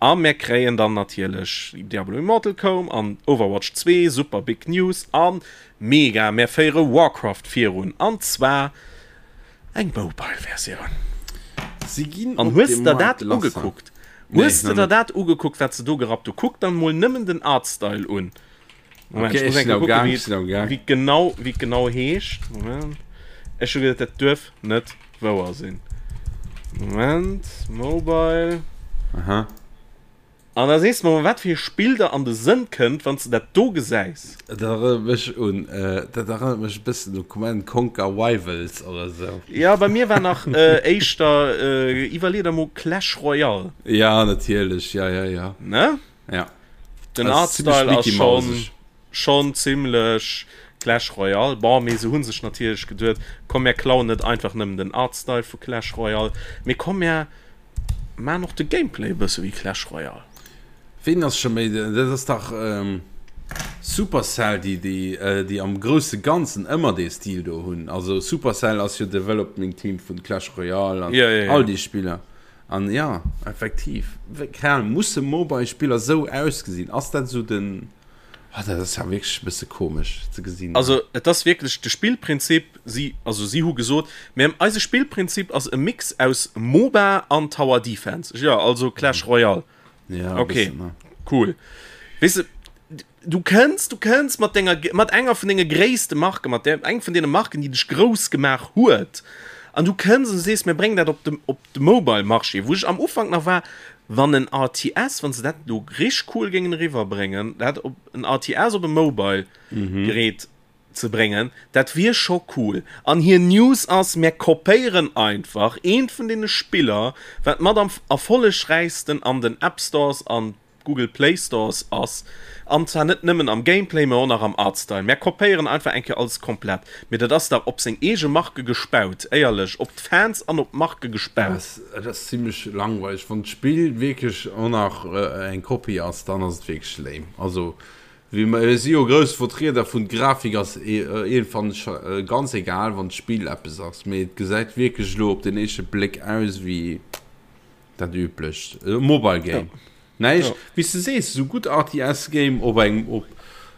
Speaker 3: A mir kréien dann natierlech Diablo Immortal koum an Overwatch 2, super big news. A mega, mir féiere Warcraft virun, an zwar eng Mobile-Versioun.
Speaker 2: Si ginn
Speaker 3: An
Speaker 2: op
Speaker 3: hues
Speaker 2: de
Speaker 3: de der
Speaker 2: Markt
Speaker 3: dat
Speaker 2: lass.
Speaker 3: ugekuckt?
Speaker 2: Nee,
Speaker 3: Hues de
Speaker 2: nach
Speaker 3: der
Speaker 2: net.
Speaker 3: dat ugekuckt, wat se do gerappt hu? Kuck der mol nëmmen den Artstyle un. Moment,
Speaker 2: Okay,
Speaker 3: ich muss
Speaker 2: ech sinn
Speaker 3: enke
Speaker 2: am
Speaker 3: kucken,
Speaker 2: Gang,
Speaker 3: wéi
Speaker 2: ech sinn am Gang.
Speaker 3: wéi genau, wéi genau heescht. Moment. Ech hu geduet, dat duerf net wouer sinn. Moment, Mobile.
Speaker 2: Aha.
Speaker 3: An da sees de mer, wat fir e Spill der an de Sënn kënnt, wann s de dat do gesäis.
Speaker 2: Dat erënnert mech un, dat erënnert mech e bëssen u Command Conquer Rivals oder sou.
Speaker 3: Ja, bei mir war nach äh, éischter, äh, iwwerlee der mol Clash Royale.
Speaker 2: Ja, natierlech, ja, ja, ja.
Speaker 3: Ne?
Speaker 2: Ja.
Speaker 3: Den Artstyle ass schon, schon zimmlech Clash Royale. Bon, mee se hu sech natierlech geduet, komm mär klauen net einfach nëmmen den Artstyle vu Clash Royale, mee komm mär maan och de Gameplay e bësse wéi Clash Royale.
Speaker 2: Ween ass scho méi, dat ass dach Supercell, déi, déi, déi am grousse Ganzen ëmmer dee Stil do hunn. Also Supercell ass jo Development Team vun Clash Royale an
Speaker 3: ja, ja, ja.
Speaker 2: all déi Spiller. An jo, effektiv, keng Ahnung, musse Mobile Spiller sou ausgesinn? Ass dat sou den, oh dat ass ja wierklech e bësse komesch ze gesinn.
Speaker 3: Also et ass wierklech de Spillprinzip, si, also si hu gesot, mir, eise Spillprinzip ass e Mix aus MOBA an Tower Defense, jo also Clash Royale.
Speaker 2: Ja, e
Speaker 3: Okay,
Speaker 2: bëssen, ne?
Speaker 3: cool. Weess de, Du kënns, du kënns mat denger, mat enger vun denge gréisste Marken, mat där, eng vun deene Marken, déi dech grouss gemaach huet, an du kënns an du sees, mir bréngen dat op de, op de Mobile-Marché, wou ech am Ufank nach war, wann en RTS, wann se dat elo richteg cool géingen eriwwerbréngen, dat op, en RTS op e Mobile-Gerät ze bréngen, dat wier scho cool. An hir News ass, mir kopéieren einfach eent vun deene Spiller, wat mat am erfollegräichsten an den App Stores an Google Play Stores ass, an zwar net nëmmen am Gameplay, mä och nach am Artstyle. Mär kopéieren einfach eng Kéier alles komplett. Mee dat ass dach op seng eege Marke gespaut, éierlech, op d'Fans an op d'Marke gespaut.
Speaker 2: Et ass zimlech langweileg. Wann d'Spill wierklech och nach eng Kopie ass, dann ass et wierklech lame. Also wéi mer si jo grouss Vertrieder vun d'Grafik ass iergendwann ganz egal, wann d'Spill eppes ass. Mee et gesäit wierklech elo op den éischte Bléck aus wéi. Dat üblecht e Mobile Game. Ja. Näischt, ja. Wéi s de sees, esou gutt RTS Game op engem op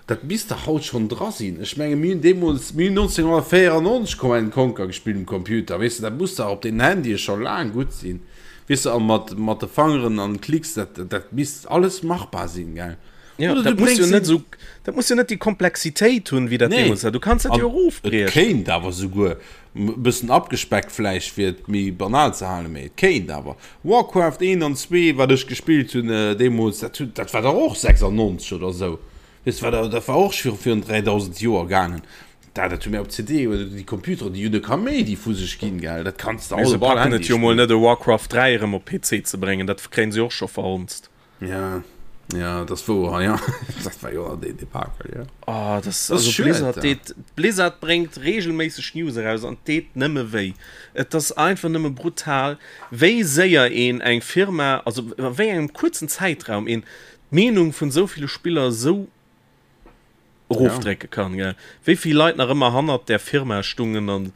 Speaker 2: dat misst dach haut schonn dra sinn. Ech menge mir hunn deemools, mir hunn 1994 Command Conquer gespillt um Computer, weess de, dat muss dach op den Handye scho laang gutt sinn, weess de, a mat mat de Fangeren an Klicks, dat dat misst alles machbar sinn, gell?
Speaker 3: Ja,
Speaker 2: Oder
Speaker 3: dat
Speaker 2: du
Speaker 3: muss jo
Speaker 2: bréngs
Speaker 3: net
Speaker 2: en.
Speaker 3: esou, dat muss jo net déi Komplexitéit hunn, wéi dat
Speaker 2: Nee,
Speaker 3: deemools war. Du kanns dat
Speaker 2: an
Speaker 3: jo
Speaker 2: et
Speaker 3: erofbriechen.
Speaker 2: kéint awer souguer E bëssen abgespeckt vläicht fir et méi banal ze halen, mee et kéint awer. Warcraft 1 an 2 wat ech gespillt hunn deemools, dat hunn, dat war dach och 96 oder esou, weess de, war dat war och scho virun 3000 Joer gaangen. Dat dat hu mir op CD oder déi Computeren, déi hunn e Kaméidi vu sech ginn, gell, dat kanns de
Speaker 3: Mee
Speaker 2: haut
Speaker 3: se
Speaker 2: op all
Speaker 3: packen
Speaker 2: Handy
Speaker 3: et jo mol
Speaker 2: spillen.
Speaker 3: net e Warcraft 3 erëm op PC ze bréngen, dat kréien se och scho verhonzt.
Speaker 2: Ja, ja, das wouer, ja. Dat war jo deen Debakel, ja.
Speaker 3: Oh, das,
Speaker 2: Das
Speaker 3: also
Speaker 2: schued,
Speaker 3: Blizzard
Speaker 2: ja.
Speaker 3: deet, Blizzard bréngt regelméisseg News eraus an deet nëmme wéi. Et ass einfach nëmme brutal, wéi séier een eng Firma, also a wéi engem kuerzen Zäitraum een d'Meenung vun esou ville Spiller esou erofdrécke kann, gell. Wéi vill Leit nach ëmmer hannert där Firma stungen an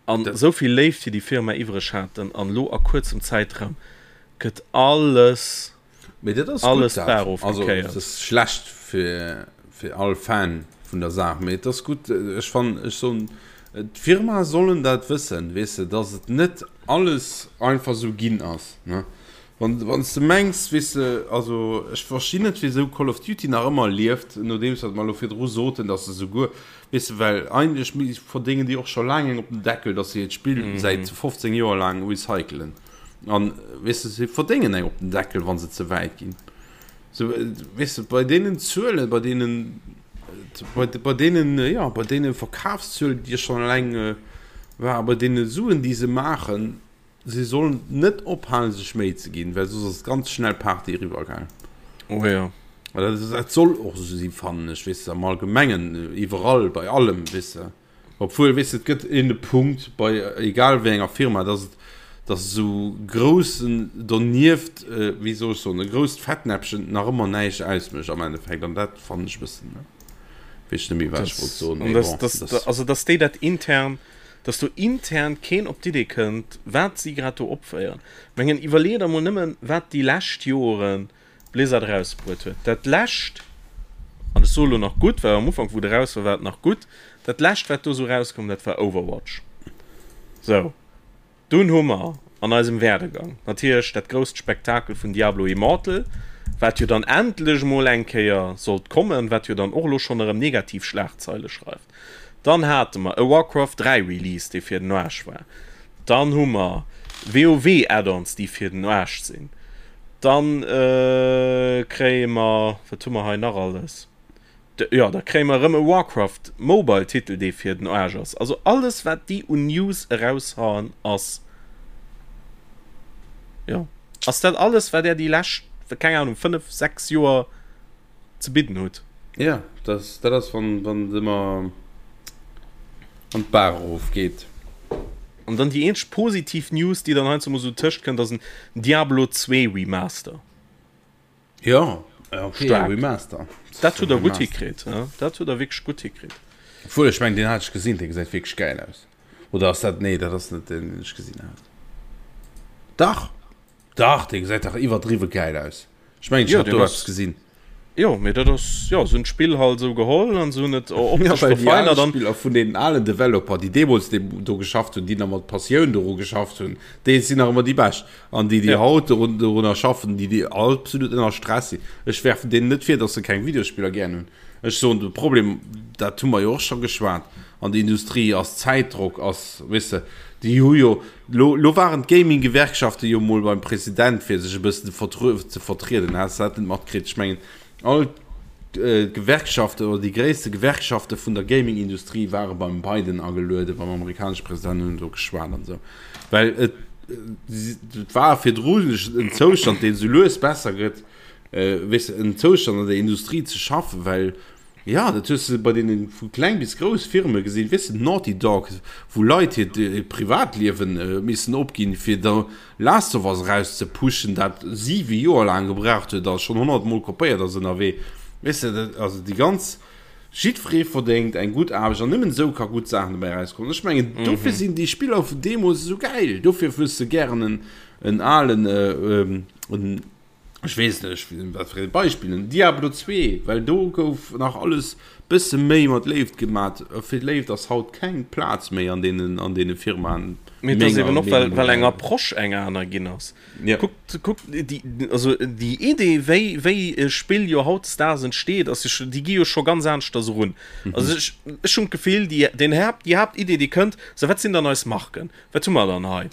Speaker 3: An esou vill Léift fir déi Firma iwwreg haten an elo a kuerzem Zäitraum gëtt alles,
Speaker 2: Mee dat ass
Speaker 3: alles
Speaker 2: gutt dat.
Speaker 3: d'Bar
Speaker 2: Also
Speaker 3: ofgekéiert.
Speaker 2: et ass schlecht fir fir all Fan vun der Saach, mee et ass gutt. Ech fannen, ech soen, d'Firmae sollen dat wëssen, weess de, dass et net alles einfach esou ginn ass, ne. Wann, wann s de mengs, weess de, also ech verstinn net, wéisou Call of Duty nach ëmmer lieft, nodeems wat mer elo virdru soten, datt se souguer, weess de, well eigentlech verdéngen déi och scho laang eng op den Deckel, datt se hiert Spill säit 15 Joer laang recycelen. An, weess de, se verdéngen eng op den Deckel, wa se ze wäit ginn. Sou, weess de, bei deenen Zuelen, bei deenen, bei, bei deenen, jo, bei deene Verkafszuelen, déi schonn eleng war, bei deene Suen, déi se maachen, Si sollen net ophalen sech Méi ze ginn, well soss ass ganz schnell Party eriwwer gaang.
Speaker 3: Oh jo.
Speaker 2: Dat soll och esou sinn, fannen ech, weess de, am Allgemengen, iwwerall, bei allem, weess de. Obwuel, weess de, et gëtt een e Punkt bei egal wéi enger Firma, dass et, dass esou groussen donieft, wéi soll ech soen, e grousst Fettnäppchen nach ëmmer näischt ausmécht am Endeffekt, an dat fannen ech e bëssen, weess ech net méi wat ech wollt soen, mee bon,
Speaker 3: dat. Also dass déi dat intern dass do intern keen op d'Idee kënnt, wat si grad do opféieren. Mengen, iwwerleeë der mol nëmmen, wat déi lescht Joren Blizzard erausbruet huet. Dat lescht, an ech soe lo nach gutt, well am Ufank, wou et eraus war, war et nach gutt, dat lescht, wat do esou erauskoum, dat war Overwatch. Sou. Dunn hu mer an eisem Werdegang natierlech dat grousst Spektakel vun Diablo Immortal, wat jo dann endlech mol eng Kéier sollt kommen, wat jo dann och elo schonn erëm negativ Schlagzeile schreift. Dann hate mer e Warcraft 3 Release, dee fir den Aarsch war. Dann hu mer WoW Add-ons, déi fir den Aarsch sinn. Dann kréie mer, wat hu mer hei nach alles? Jo, da kréie mer erëm e Warcraft Mobile Titel, dee fir den Aarsch ass. Also alles wat déi un News eraushauen ass, jo, ass dat alles wat där déi lescht, keng Ahnung, 5, 6 Joer ze bidden hutt.
Speaker 2: Jo, dat dat ass wann wann et ëmmer an d'Baach erof geet.
Speaker 3: An dann déi eenzeg positiv News déi dann heiansdo mol esou tëscht kënnt ass en Diablo 2 Remaster.
Speaker 2: Ja, okay,
Speaker 3: Stark. Remaster. Dat huet er gutt hikritt. Ja? Dat huet er wierklech gutt hikritt.
Speaker 2: Obwuel, ech mengen, deen hat ech gesinn, dee gesäit wierklech gäil aus. Oder ass dat, nee, dat ass net deen, deen ech gesinn hat. Dach! Dach, dee gesäit dach iwwerdriwwe gäil aus. Ech mengen, ech
Speaker 3: Ja,
Speaker 2: hat
Speaker 3: deen
Speaker 2: do
Speaker 3: ass
Speaker 2: eppes gesinn.
Speaker 3: Jo, mee dat ass, jo, se hunn d'Spill halt esou geholl an se hunn et
Speaker 2: optesch
Speaker 3: ja,
Speaker 2: verfeinert an. Spiller vun deenen alen Developer, déi deemools do geschafft hunn, déi nach mat Passioun doru geschafft hunn, déi sinn nach ëmmer déi bescht. An déi, déi ja. haut dorun, dorunner schaffen, déi, déi absolut ënner Stress sinn. Ech werfen deenen net vir, dass se keng Videospiller gären hunn. Ech soen, de Problem, dat hu mer jo och scho geschwat, an der Industrie ass Zäitdrock, ass, weess de, déi hu jo, Lo, lo waren d'Gaming-Gewerkschafte jo mol beim President, fir sech e bëssen ze vertrieden. Has de dat net matkritt? Ech mengen, all d'Gewerkschaften oder déi gréisste Gewerkschafte vun der Gaming-Industrie ware beim Biden agelueden, beim amerikanesche President, hunn do geschwat an esou. Well et, et war virdru en Zoustand, deen esou lues besser gëtt, weess de, en Zoustand an der Industrie ze schaffen, well Jo, dat hues de bei deenen vu kleng bis grouss Firme gesinn, weess de, Naughty Dog, wou Leit hiert Privatliewen missen opginn, fir da Last of Us eraus ze pushen, dat 7 Joer laang gebraucht huet a schonn 100 mol kopéiert ass ënnerwee. Weess de, dat, also déi ganz, jiddweree verdéngt eng gutt Aarbecht an nëmmen esou ka gutt Saachen dobäi erauskommen. Ech mengen, dofir sinn déi Spiller vun deemools esou gäil, dofir hues de gären en, en alen, en, Ech weess net, ech, wat fir e Beispill, en Diablo 2, well do gouf nach alles bësse méi mat Léift gemat. Fir Léift ass haut keng Plaz méi an deenen, an deene Firmaen.
Speaker 3: Mee et ass eben och, well, well eng Approche eng aner ginn ass.
Speaker 2: Ja.
Speaker 3: Kuckt, kuckt, déi, also déi Idee, wéi, wéi e Spill jo hautdesdaags entsteet, ass jo scho, déi gi jo scho ganz aneschters erun. Also ech, ech hunn d'Gefill, déi, den Haapt, déi Haaptidee, déi kënnt, sou, wat sinn dann eis Marken? Wat hu mer dann hei?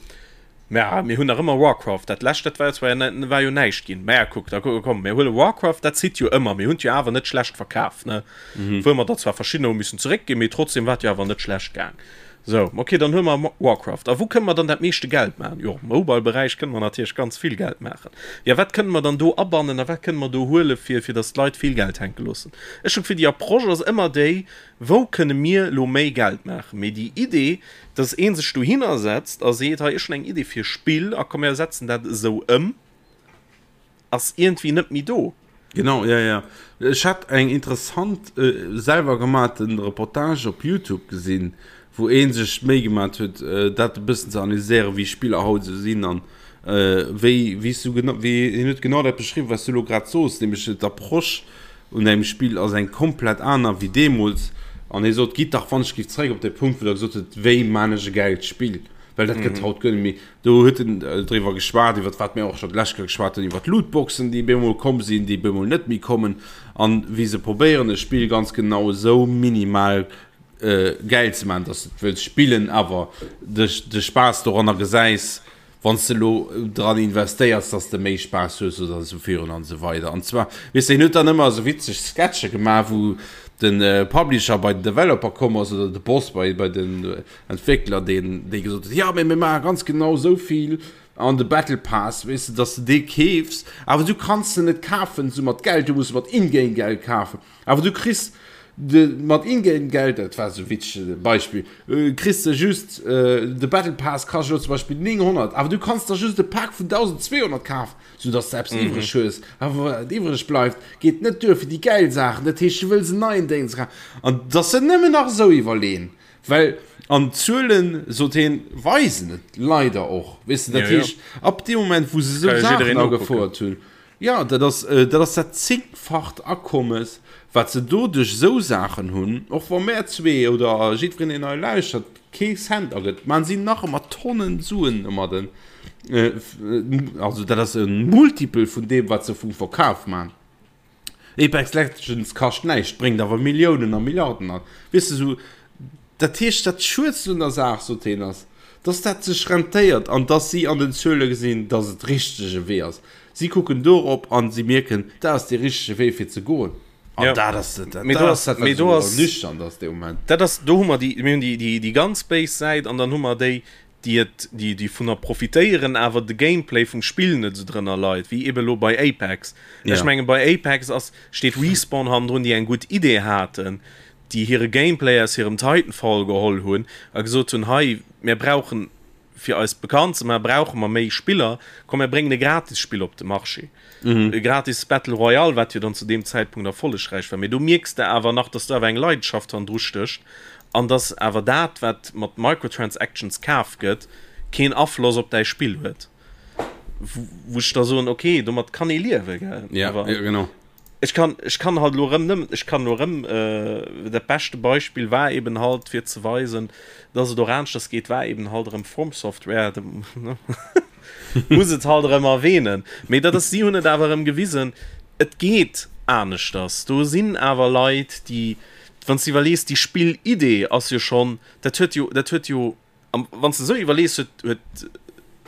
Speaker 3: Mä mir hunn nach ëmmer Warcraft, dat lescht, dat war jo zwar war jo näischt ginn. Mä kuck, da komm, mir huele Warcraft, dat zitt jo ëmmer. Mir hunn et jo awer net schlecht verkaf, ne? Wuel mer der zwar verschiddener hu missen zeréckginn, mee trotzdem war et jo awer net schlecht gaang. Sou, okay, dann huele mer Warcraft. A wou kënne mer dann dat meeschte Geld maachen? Jo, am Mobile-Beräich kënne mer natierlech ganz vill Geld maachen. Jo, wat kënne mer dann do abannen a wat kënne mer do huele fir, fir datt d'Leit vill Geld hänke loossen? Ech hunn d'Gefill, déi Approche ass ëmmer déi, Wou kënne mir elo méi Geld maachen? Mee déi Idee, dass ee sech dohinner setzt a seet, hei ech hunn eng Idee fir e Spill a komm mir setzen dat esou ëm, ass iergendwéi net méi do.
Speaker 2: Genau, jo, jo. Ech hat eng interessant selwer gemaaten Reportage op Youtube gesinn, wou ee sech d'Méi gemat huet, dat e bëssen ze analyséieren, wéi Spiller haut esou sinn an wéi, wéi s du genau, wéi hien huet genau dat beschriwwen, wat s du elo grad soos, nämlech d'Approche un engem Spill ass eng komplett aner wéi deemools. An hie sot, Gitt dach wann ech géif zeréck op dee Punkt, wou Der gesot hutt, wéi maan ech e gäilt Spill? Well dat gëtt haut guer net méi. Do huet en driwwer geschwat, iwwer wat mir och scho d'lescht Kéier geschwat hunn, iwwer d'Lootboxen, déi bemol komm sinn, déi bemol net méi kommen. An wéi se probéieren, e Spill ganz genau esou minimal gäil ze maachen, dass de et wëlls spillen, awer de de Spaass doranner gesäis, wann s de elo dran investéiers, dass de méi Spaass hues oder esou virun an esou weider. An zwar, weess de, hien huet dann ëmmer esou witzeg Sketche gemaach, wou de Publisher bei den Developer komm ass oder de Boss bei bei den Entwéckler, deen dee gesot huet, jo, mee mir maache ganz genau esou vill an de Battle Pass, weess de, dass de dee keefs, awer du kanns en net kafen esou mat Geld, du muss e mat In-Game-Geld kafen. Awer du kriss de mat In-Game-Geld, dat war esou e witzege Beispill, kriss de just, de Battle Pass kascht elo zum Beispill 900, awer du kanns der just e Pak vun 1.200 kafen, sou dass de eppes iwwreg hues. Awer wat iwwreg bleift, geet net duer fir déi gäil Saachen. Dat heescht, du wëlls en neien Déngs kafen. An dass se nëmmen nach esou iwwerleeën, well, an d'Zuelen, sot hien, weisen et leider och, weess de. Dat heescht, ab deem Moment, wou se esou Saachen agefouert hunn, Jo, dat ass, dat ass dat zéngfacht Akommes, wat se do duerch esou Saachen hunn. Och wa mär zwee oder jiddwereen, deen hei lauschtert, kee Cent agëtt, maachen si nach ëmmer Tonnen Suen domadden. Also dat ass e Multiple vun deem, wat se vum Verkaf maachen. Apex Legends kascht näischt, bréngt awer Milliounen a Milliarden an. Weess de, esou, dat heescht, dat Schuedst un der Saach, sot hien, ass, dass dat sech rentéiert an dass si an den Zuele gesinn, dass et richtege Wee ass. Si kucken dorop an si mierken, dat ass dee richtege Wee fir ze goen. An
Speaker 3: Ja.
Speaker 2: dat ass dat,
Speaker 3: Mee
Speaker 2: dat
Speaker 3: do
Speaker 2: ass
Speaker 3: ass,
Speaker 2: dat, wat
Speaker 3: mee do
Speaker 2: esou
Speaker 3: ass,
Speaker 2: ernüchternd ass dee Moment.
Speaker 3: dat ass, do hu mer déi, mir hunn déi, déi, déi ganz béis Säit an dann hu mer déi, déi et, déi, déi vunner profitéieren, awer de Gameplay vum Spill net esou drënner leit, wéi ebe lo bei Apex. Ech
Speaker 2: Ja.
Speaker 3: menge bei Apex ass, steet Respawn hannendrun, déi eng gutt Idee haten, déi hire Gameplay aus hirem Titanfall geholl hunn a gesot hunn, hei, mir brauchen, fir eis bekannt ze maachen, brauche mer méi Spiller, komm mir bréngen e Gratisspill op de Marché. E gratis Battle Royale, wat jo dann zu deem Zäitpunkt erfollegräich war. Mee do mierks de awer nach, dass do awer eng Leidenschaft hannendru stécht an dass awer dat, wat mat Microtransactions kaf gëtt, keen Afloss op däi Spill huet. Wou ech da soen, okay, domat kann ee liewen, gell?
Speaker 2: Ja,
Speaker 3: Awer
Speaker 2: ja, genau.
Speaker 3: Ech kann, ech kann halt elo erëm nëmmen, ech kann elo erëm, dat beschte Beispill war eben halt, fir ze weisen, dass et och aneschters geet, war eben halt erëm From Software, muss et halt erëm erwähnen. Mee dat ass, si hunn et awer erëm gewisen, et geet aneschters. Do sinn awer Leit, déi, wann s de iwwerlees, déi Spillidee ass jo schonn, dat huet jo, dat huet jo, An wann s de esou iwwerlees, huet, huet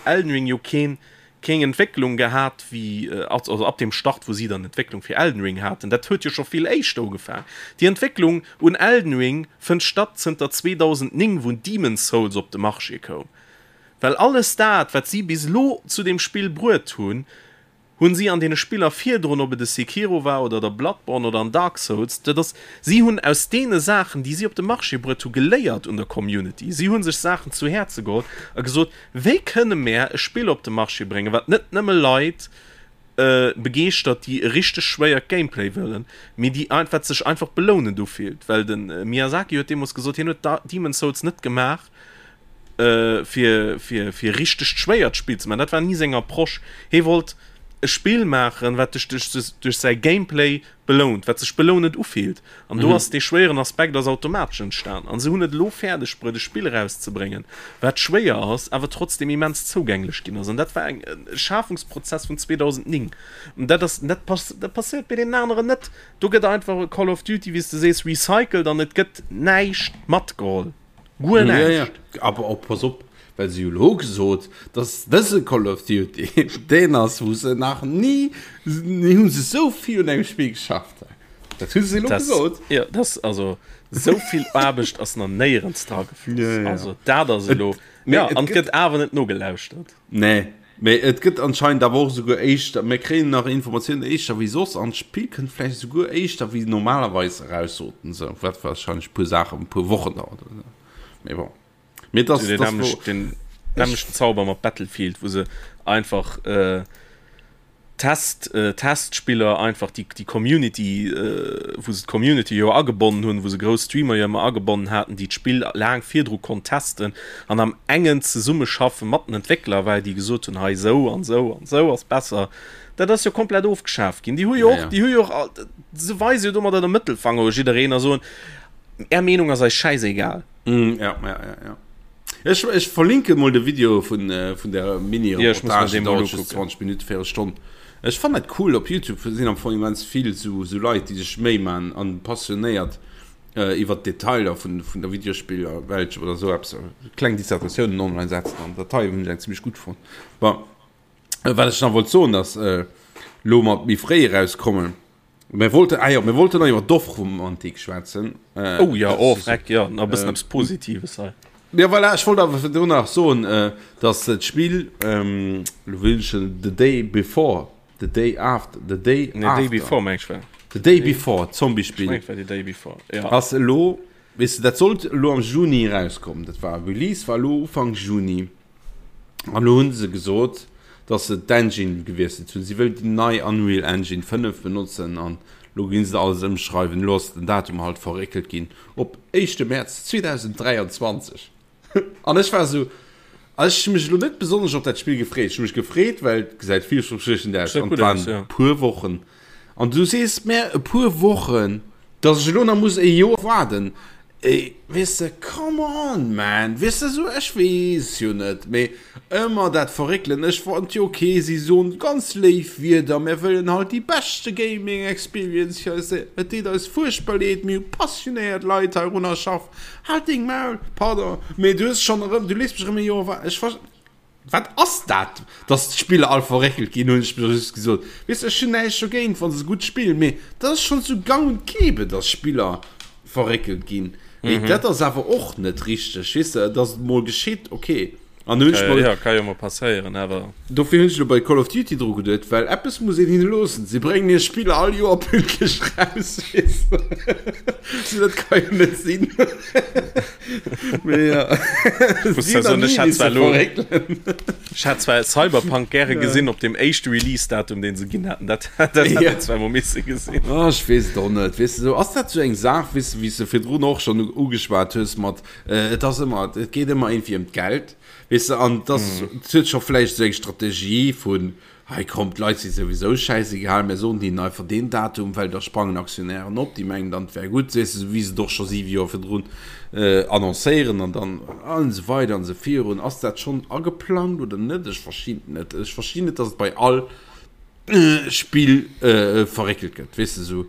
Speaker 3: Elden Ring jo keen, keng Entwécklung gehat wéi, also ab dem Start, wou si dann d'Entwécklung fir Elden Ring haten, dat huet jo scho vill éischter ugefaang. Déi Entwécklung un Elden Ring fënnt statt zënter 2009, wou Demon's Souls op de Marché koum. Well alles dat, wat si bis elo zu deem Spill bruet hunn, Hunn si an deene Spiller virdrun, ob et e Sekiro war oder der Bloodborne oder an Dark Souls, dat ass, si hunn aus deene Saachen, déi si op de Marché bruet hu geléiert un der Community. Si hu sech Saachen zu Häerze geholl a gesot, wéi kënne mär e Spill op de Marché bréngen, wat net nëmme Leit begeeschtert, déi e richteg schwéiert Gameplay wëllen, mee déi, wat sech einfach belounend ufillt. Well de Miyazaki huet deemools gesot, hien huet Demon's Souls net gemaach, fir fir fir richtegt schwéiert Spill ze maachen. Dat war ni seng Approche. Hie wollt e Spill maachen, wat dech duerch duerch säi Gameplay belount, wat sech belounend ufillt. An do ass dee schwéieren Aspekt ass automatesch entstan. An se hunn et elo fäerdeg bruet, e Spill erauszebréngen, wat schwéier ass, awer trotzdem immens zougänglech ginn ass. An dat war eng e Schafungsprozess vun 2009. An dat ass dat pass dat passéiert bei deenen aneren net. Do gëtt einfach e Call of Duty, wéi s de sees, recycelt an et gëtt näischt matgeholl. Guer
Speaker 2: Ja, ja.
Speaker 3: näischt.
Speaker 2: Aber och, pass op, well se hu lo gesot, dass dëse Call of Duty deen ass, wou se nach ni, ni hu se esou vill un engem Spill geschafft. Dat hu se elo
Speaker 3: Das,
Speaker 2: gesot.
Speaker 3: ja, das, also, esou vill Aarbecht ass nach néierens dra gefloss.
Speaker 2: Ja, ja.
Speaker 3: Also, dat ass
Speaker 2: Et,
Speaker 3: elo.
Speaker 2: mee
Speaker 3: Ja,
Speaker 2: et
Speaker 3: an et
Speaker 2: gëtt.
Speaker 3: gëtt awer net nogelauschtert.
Speaker 2: Nee, mee et gëtt anscheinend awer och esouguer éischter, mir kréien nach Informatiounen éischter wéi soss an d'Spill kënnt vläicht esouguer éischter wéi normalerweis eraus, soten se, wat warscheinlech e puer Saachen, e puer Wochen dauert oder esou. Mee bon. Mee et ass,
Speaker 3: Den
Speaker 2: et ass wou
Speaker 3: nämlechten, den
Speaker 2: ech.
Speaker 3: nämlechten Zauber mat Battlefield, wou se einfach äh, Test, Testspiller einfach déi déi Community, wou se d'Community jo agebonnen hunn, wou se grouss Streamer jo ëmmer agebonnen haten, déi d'Spill laang virdru konnt testen an am engen Zesummeschaffe mat den Entwéckler, well déi gesot hunn, hei esou an esou an esou ass besser. Dat ass jo komplett ofgeschaaft ginn. Déi hu jo och, déi hu jo och all, se weise jo domadder de Mëttelfanger u jiddereen a soen, Är Meenung ass eis schäisegal.
Speaker 2: Ja, ja, ja, ja. Ech, ech verlinke mol de Video vun, äh, vun der Mini-Reportage, ja, dauert just 20 Minuten, véierel Stonn. Ech fannen dat cool, op Youtube sinn am Fong immens vill sou, sou Leit, déi sech Méi man an passionéiert äh, iwwer d'Detailer vun, vun der Videospillerwelt oder sou eppes, kleng Dissertatiounen online setzen an dat hei hunn ech eng zimmlech gutt fonnt. Bon, wat ech nach wollt soen, ass, äh, lo mat méi fréi erauskommen, Mir wollten, ah jo, mir wollten nach iwwer Dorfromantik schwätzen.
Speaker 3: Äh, oh ja, oh, freck, ja, nach e bëssen äh, eppes Positives hei.
Speaker 2: Ja, voilà, ech wollt awer virdrun nach soen, äh, dass d'Spill, ähm, lo wëll ech The Day Before, The Day After, The Day
Speaker 3: nee, After. Day Before, meng ech war.
Speaker 2: The Day Before, Zombie-Spill.
Speaker 3: Ech meng, war The Day Before,
Speaker 2: ja. Ass elo, weess de, dat sollt elo am Juni erauskommen. Dat war, Release war elo Ufank Juni. An elo hu se gesot, dass se d'Engine gewiesselt hunn. Si wëllen déi nei Unreal Engine 5 benotzen an elo ginn se alles ëmschreiwen. Elo ass den Datum halt verréckelt ginn op éischte Mäerz 2023. An ech war esou, ech hu mech elo net besonnesch op dat Spill gefreet. Ech hu mech gefreet, well et gesäit villverspriechend aus an et waren e puer Wochen. An du sees mär e puer Wochen, dass ech elo nach muss e Joer waarden. Ey, weess de, come on man, weess de, esou, ech weess jo net, mee ëmmer dat Verréckelen, ech fonnt jo ok, si soen ganz léif Wierder, mär wëllen halt déi beschte Gaming Experience fir eis, et deet eis fuerchtbar leed, mir hu passionéiert Leit heirunner schaff, halt deng Maul, pardon, mee du hues schonn erëm, du léiss mech erëm e Joer waarden, ech ver. Wat ass dat, dass d'Spiller all verréckelt ginn, hunn ech mir just gesot. Weess de, ech hunn näischt dogéint, wa se gutt spillen, mee dat ass schonn sou gang und gäbe, dass Spiller verréckelt ginn. Mee dat ass awer och net richteg, weess de, dass et mol geschitt, ok.
Speaker 3: An hunn ech mer. Jo, ka jo mol passéieren, awer.
Speaker 2: Dofir hunn ech elo bei Call of Duty dru geduet, well eppes muss een hinne loossen, si bréngen hir Spiller all Joer pünktlech raus, weess de. Dat ka jo net sinn.
Speaker 3: Ech hat zwar Cyberpunk gäre gesinn op dem éischte Release-Datum, deen se ginn haten. Dat dat hätt een zwar mol misse gesinn.
Speaker 2: Ah, ech weess et och net. Weess de, sou ass dat sou eng Saach, weess de, wéi s de virdrun och schonn ugeschwat hues mat, et ass ëmmer, et geet ëmmer iergendwéi ëm d'Geld, weess de, an et ass, et huet scho vläicht esou eng Strategie vun, Hei komm, d'Leit si souwisou schäisegal, mär soen hinnen einfach deen Datum, well da sprangen Aktionären op, déi mengen dann, et wär gutt, weess de, esou wéi se et och scho siwe Joer virdrun annoncéieren an dann an esou weider an esou virun. Ass dat schonn ageplangt oder net? Ech verstinn et net. Ech verstinn net, datt et bei all Spill verréckelt gëtt, weess de, esou.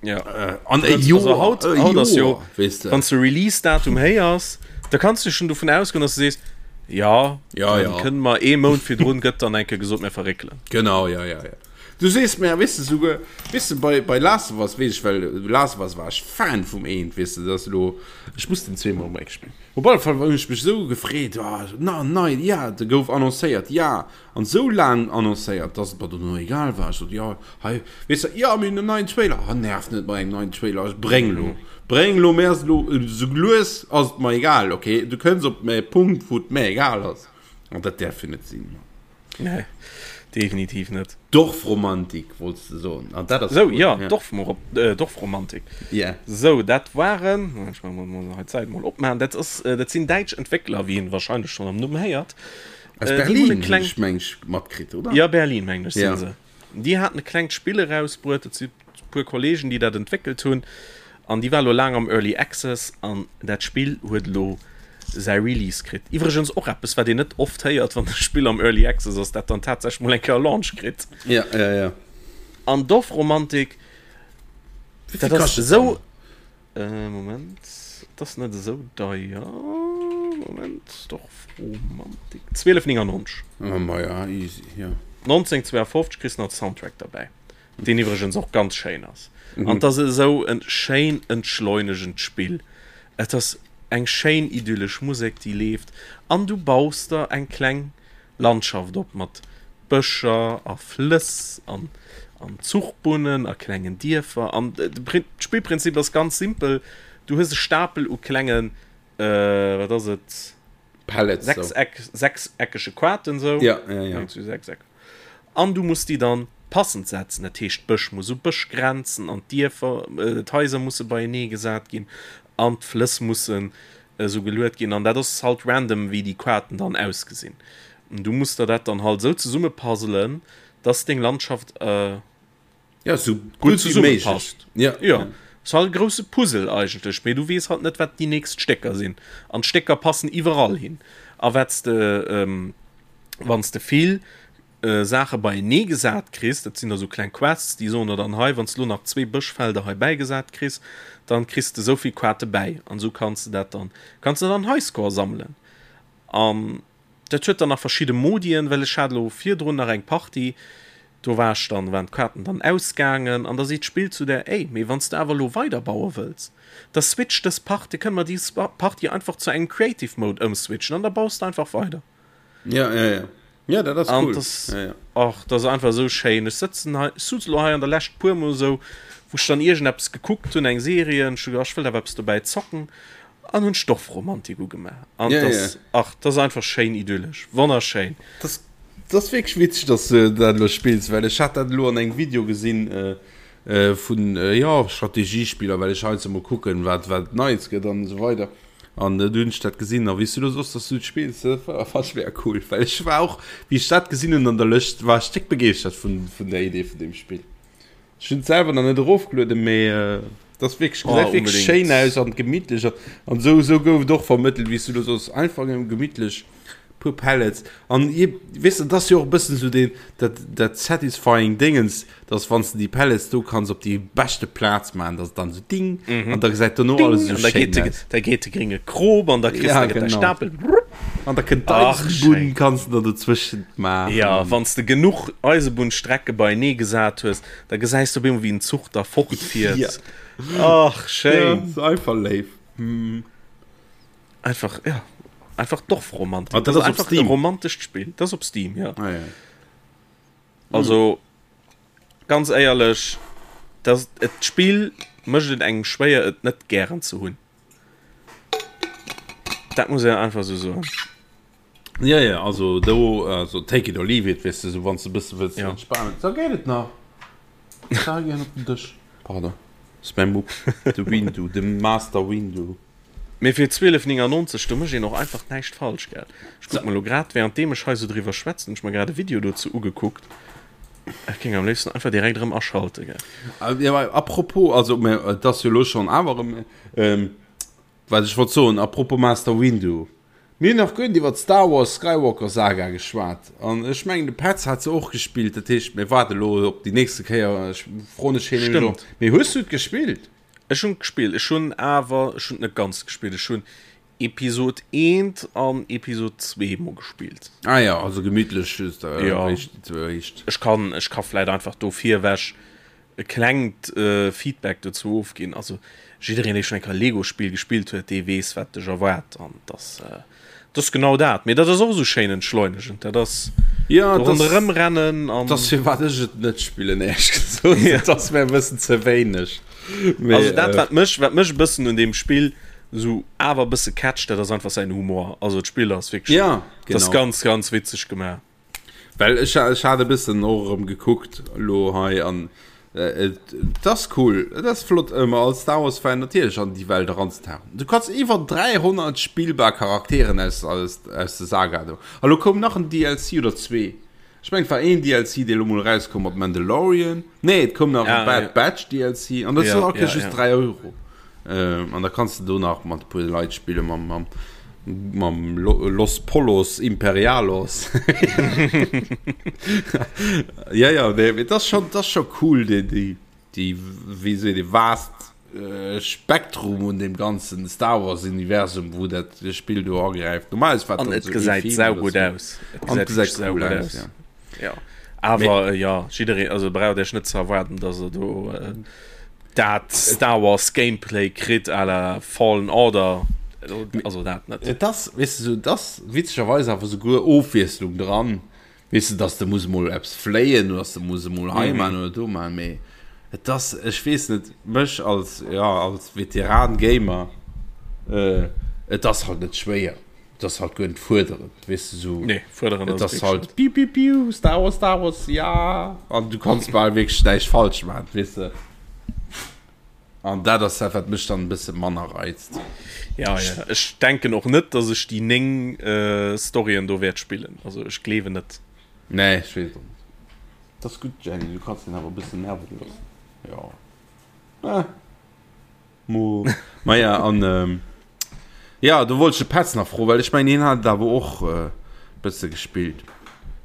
Speaker 3: Ja. An e Joer, haut, e haut ass jo, weess de. Wann s de Release-Datum héiers, da kanns du schon dovun ausgoen, dass du sees, ja,
Speaker 2: ja, ja.
Speaker 3: kënne mer ee Mount virdrun gëtt dann eng Kéier gesot, mir verréckelen.
Speaker 2: Genau, ja, ja, ja. Du sees mir, weess de, souguer, weess de, bei, bei Last of Us weess ech, well Last of Us war ech Fan vum eent, weess de, dat ass elo, ech muss den zweemol emol eng spillen. Op alle Fall hunn ech mech esou gefreet, oh, na, nei, ja, de gouf annoncéiert, ja. An sou laang annoncéiert, dass et mer dono egal war. Ech sot, jo, hei, weess de, jo, mir hunn en neien Trailer. Ha, nerv net mat engem neien Trailer, ech bréng elo, bréng elo, mir ass elo, sou lues ass et mer egal, ok, du kënns op e Punkt, wou et mer egal ass. An dat däerf jo net sinn.
Speaker 3: Nee, definitiv net.
Speaker 2: Dorfromantik wollts de soen,
Speaker 3: an dat ass Sou, jo, Dorfromantik.
Speaker 2: Yeah.
Speaker 3: Sou, dat waren, ech muss hei d'Säit mol opmaachen, dat ass, dat sinn däitsch Entwéckler, wéi een wahrscheinlech schonn am Numm héiert.
Speaker 2: Aus äh, Berlin kleng... ech meng matkritt
Speaker 3: oder? Ja Berlin meng ech ja. se. Déi haten e klengt Spill erausbruet, dat si puer Kollegen, déi dat entwéckelt hunn an déi war lo laang am Early Access an dat Spill huet lo säi Release kritt. Iwwregens och eppes wat een net oft héiert, wann e Spill am Early Access ass, dat dann tatsächlech mol eng Kéier Launch kritt.
Speaker 2: Ja, ja, ja.
Speaker 3: An Dorfromantik, dat ass esou. Äh, Moment, dat ass net esou deier. Moment, Dorfromantik. 12,99.
Speaker 2: Oh, ma ja, easy, ja.
Speaker 3: 1952 kriss nach de Soundtrack derbäi, deen iwwregens och ganz schéin ass. Mhm. An dat ass esou en schéin entschleunegend Spill. Et ass eng schéin idyllesch Musek, déi leeft, an du baus der eng kleng Landschaft op mat Bëscher a Flëss an an Zuchbunnen a klengen Dierfer an d'Spillprinzip ass ganz simpel, du hues e Stapel u klengen, wat ass et,
Speaker 2: Pellets,
Speaker 3: Sechseck, sechseckege Quaten
Speaker 2: sou, ja, ja, ja.
Speaker 3: Sechseck, an du muss déi dann passend setzen, dat heescht Bësch muss u Bësch grenzen an d'Dierfer, d'Haiser musse beienee gesat ginn an d'Flëss mussen esou geluet ginn an dat ass halt random wéi déi Quaten dann ausgesinn. Du muss der dat dann halt esou zesumme puzzelen, dass deng Landschaft
Speaker 2: ja, sou gutt wéi méiglech
Speaker 3: ja. Ja. Ass halt e grousse Puzzle eigentlech, mee du weess halt net wat déi nächst Stécker sinn an d'Stécker passen iwwerall hin a wat s de wann s de vill Saache beienee gesat kriss, dat sinn da sou kleng Quests, déi soen der dann hei wann s de lo nach zwee Bëschfelder hei bäigesat kriss, dann kriss de souvill Quarte bäi an esou kanns de dat dann kanns de dann Highscore sammelen an Dat huet dann nach verschidde Modien, well ech hat elo virdrun nach eng Partie, do war ech dann, waren d'Kaarten dann ausgaangen an da seet d'Spill zu der, ey, mee wann s de awer elo weiderbaue wëlls, da switch dës Partie, kënne mer déi Partie einfach zu engem Creative Mode ëmswitchen an da baus de einfach weider.
Speaker 2: Ja, ja, ja. Ja, dat ass
Speaker 3: cool. An ja, ja. Ach, dat ass einfach esou schéin. Ech sëtzen hei, ech suz elo hei an der Lescht puer mol esou, wou ech dann iergendeppes gekuckt hunn, eng Serie, an ech hu gedacht, ech wëllt awer eppes dobäi zocken. An hunn Stoffromantik ugemaach. An ja, das, ja. ach, das ist einfach schéin idyllisch. Wonnerschéin.
Speaker 2: Das, das ist wirklich witzig, dass du dat lo spills, well ech hat dat lo an engem Video gesinn äh, äh, vun äh, ja, Strategiespieler, well ech heiansdo mol kucken, wat, wat Neies gëtt an esou weider. An äh, du hunn ech dat gesinn, a wéi s du lo soss, dass du et spills, dat war, fand ech mega cool, well ech war och, wéi ech dat gesinn hunn an der Lëscht, war ech déck begeeschtert vun, vun der Idee vun deem Spill. Ech hunn et selwer nach net erofgelueden, mee et ass wierklech, gesäit wierklech schéin aus an gemittlech an esou esou gouf et och vermëttelt, wéi s du elo soss, einfach nëmme gemittlech puer Pellets an je, weess de, et ass jo och e bëssen esou deen, dat dat satisfying Déngens, dass wann s de déi Pellets do kanns op déi beschte Plaz maachen, dass et dann esou ding an da gesäit dono alles esou
Speaker 3: An da
Speaker 2: schéin
Speaker 3: geet de,
Speaker 2: aus.
Speaker 3: da geet de grénge Krop an da kriss
Speaker 2: Ja,
Speaker 3: da gëtt däi
Speaker 2: genau.
Speaker 3: Stapel rupp.
Speaker 2: An da kënnt
Speaker 3: Ach,
Speaker 2: d'Eisebunn,
Speaker 3: schéin.
Speaker 2: kanns de da dozwëschent maachen.
Speaker 3: Ja, wann s de genuch Eisebunnstrecke beienee gesat hues, da gesäis de op eemol, wéi en Zuch da fortfiert.
Speaker 2: Ja.
Speaker 3: Ach,
Speaker 2: Ja,
Speaker 3: schéin.
Speaker 2: ass einfach léif.
Speaker 3: Einfach, ja, einfach Dorfromantik.
Speaker 2: Ah, dat
Speaker 3: Das
Speaker 2: ass op
Speaker 3: einfach e
Speaker 2: Steam.
Speaker 3: romantescht Spill. Dat ass op Steam, ja.
Speaker 2: Ah, ja.
Speaker 3: Also, ganz éierlech, das, et, d'Spill mécht et engem schwéier, et net gären ze hunn. Dat muss een einfach esou soen.
Speaker 2: Ja, ja, also do, also take it or leave it, weess de, sou wann s de e bësse wëlls
Speaker 3: Ja.
Speaker 2: entspanen, da geet et nach. Da gehen op den Dësch. Pardon, ass mäi Mupp, de Windu, de Master Windu.
Speaker 3: Mee fir 12,99, do mécht een och einfach näischt falsch, gell? Ech kuck mer elo grad, währenddeem ech hei sou driwwer schwätzen, hunn ech mer grad e Video dozou ugekuckt. Ech géing am léifsten einfach direkt erëm aschalte, gell?
Speaker 2: Ja, mä apropos, also mä et ass jo elo schonn awer erëm, wat ech wollt soen, apropos Master Windu, mir hunn nach guer net iwwer d'Star Wars Skywalker Saga geschwat an ech mengen de Petz hat se och gespillt, dat heescht mir waarde elo op déi nächste Kéier, ech froen ech hien elo.
Speaker 3: Stëmmt.
Speaker 2: Mee hues du et gespillt?
Speaker 3: Ech hunn et gespillt, ech hunn awer, ech hunn et net ganz gespillt, ech hunn Episod eent an Episod zwee mol gespillt.
Speaker 2: Ah ja, also gemütlech just äh,
Speaker 3: Ja.
Speaker 2: réischt, réischt.
Speaker 3: Ech kann, ech ka vläit einfach do virwech e klengt äh, Feedback dozou ofginn. Also jiddereen, dee schonn eng Kéier e Lego-Spill gespillt huet, dee weess, wat dech erwaart. An dass, äh, dat ass genau dat. Mee dat ass och esou schéin entschleunegend. Dat ass
Speaker 2: Ja,
Speaker 3: do
Speaker 2: das,
Speaker 3: ronderëm rennen an.
Speaker 2: das firwat ech et net spillen, éierlech gesot.
Speaker 3: Ja.
Speaker 2: Dat ass mir e bëssen ze wéineg. Mee,
Speaker 3: Also dat,
Speaker 2: äh,
Speaker 3: wat mech, wat mech e bëssen un deem Spill sou awer e bësse catcht, dat ass einfach säin Humor. Also d'Spill ass wierklech,
Speaker 2: Ja,
Speaker 3: dat ass
Speaker 2: genau.
Speaker 3: ganz, ganz witzeg gemaach.
Speaker 2: Well ech, ech hat e bëssen och erëm gekuckt elo hei an äh, et, et ass cool, et ass flott ëmmer als Star Wars Fan natierlech an déi Welt eranzetauchen. Du kanns iwwer 300 spillbar Charakteren aus, aus, aus der Saga do. A lo koum nach en DLC oder zwee. Ech mengen et war een DLC dee lo mol erauskoum mat Mandalorian. Nee et koum nach e
Speaker 3: Ah,
Speaker 2: Bad
Speaker 3: ja.
Speaker 2: Batch DLC an dat
Speaker 3: Ja,
Speaker 2: ass all Kéiers
Speaker 3: ja,
Speaker 2: just
Speaker 3: ja.
Speaker 2: 3 Euro. Ähm, an da kanns de do nach mat e puer Leit spille mam, mam, mam Los Pollos Imperialos. Ja, ja, nee, mee dat ass schon, dat ass scho cool déi, déi, déi, wéi seet ee, vast Spektrum un dem ganzen Star Wars Universum wou dat Spill do agräift. Normalerweis war
Speaker 3: An
Speaker 2: dann
Speaker 3: et
Speaker 2: so ee
Speaker 3: gesäit
Speaker 2: Film
Speaker 3: sau
Speaker 2: oder
Speaker 3: gutt
Speaker 2: sou.
Speaker 3: aus. Et
Speaker 2: An
Speaker 3: gesäit
Speaker 2: et
Speaker 3: wierklech
Speaker 2: gesäit
Speaker 3: sau
Speaker 2: cool
Speaker 3: gutt
Speaker 2: aus,
Speaker 3: aus.
Speaker 2: ja.
Speaker 3: Ja. Awer äh, ja, jiddereen, also braucht Iech net ze erwaarden, dass der do äh, dat Star Wars Gameplay kritt à la Fallen Order. Also dat net.
Speaker 2: Et ass, weess de, sou, et ass witzegerweis awer souguer Ofwiesslung dran. Weess de, dass de muss emol eppes fléien oder dass de muss emol hei man oder do man, mee et ass, ech weess net, mech als, jo, als Veteran-Gamer, et ass halt net schwéier, et ass halt guer net fuerderend, weess de, sou,
Speaker 3: Nee, fuerderend
Speaker 2: et
Speaker 3: ass et
Speaker 2: ass halt
Speaker 3: wierklech net.
Speaker 2: piu piu piu, Star Wars, Star Wars, ja, an du kanns bal wierklech näischt falsch man, weess de. An dat ass dat, wat mech dann e bësse manner reizt.
Speaker 3: Ja, ja. Ech denken och net, dass ech déi 9 äh, Storyen do wäert spillen. Also ech gleewen net.
Speaker 2: Nee, ech weess et och net. Dat ass gutt, Jenny, du kanns den awer e bëssen nerven loossen. Jo. Eh. Mo. Maja, an ähm, ja, do wollt ech de Petz nach froen, well ech mengen, hien hat et awer och äh, bësse gespillt.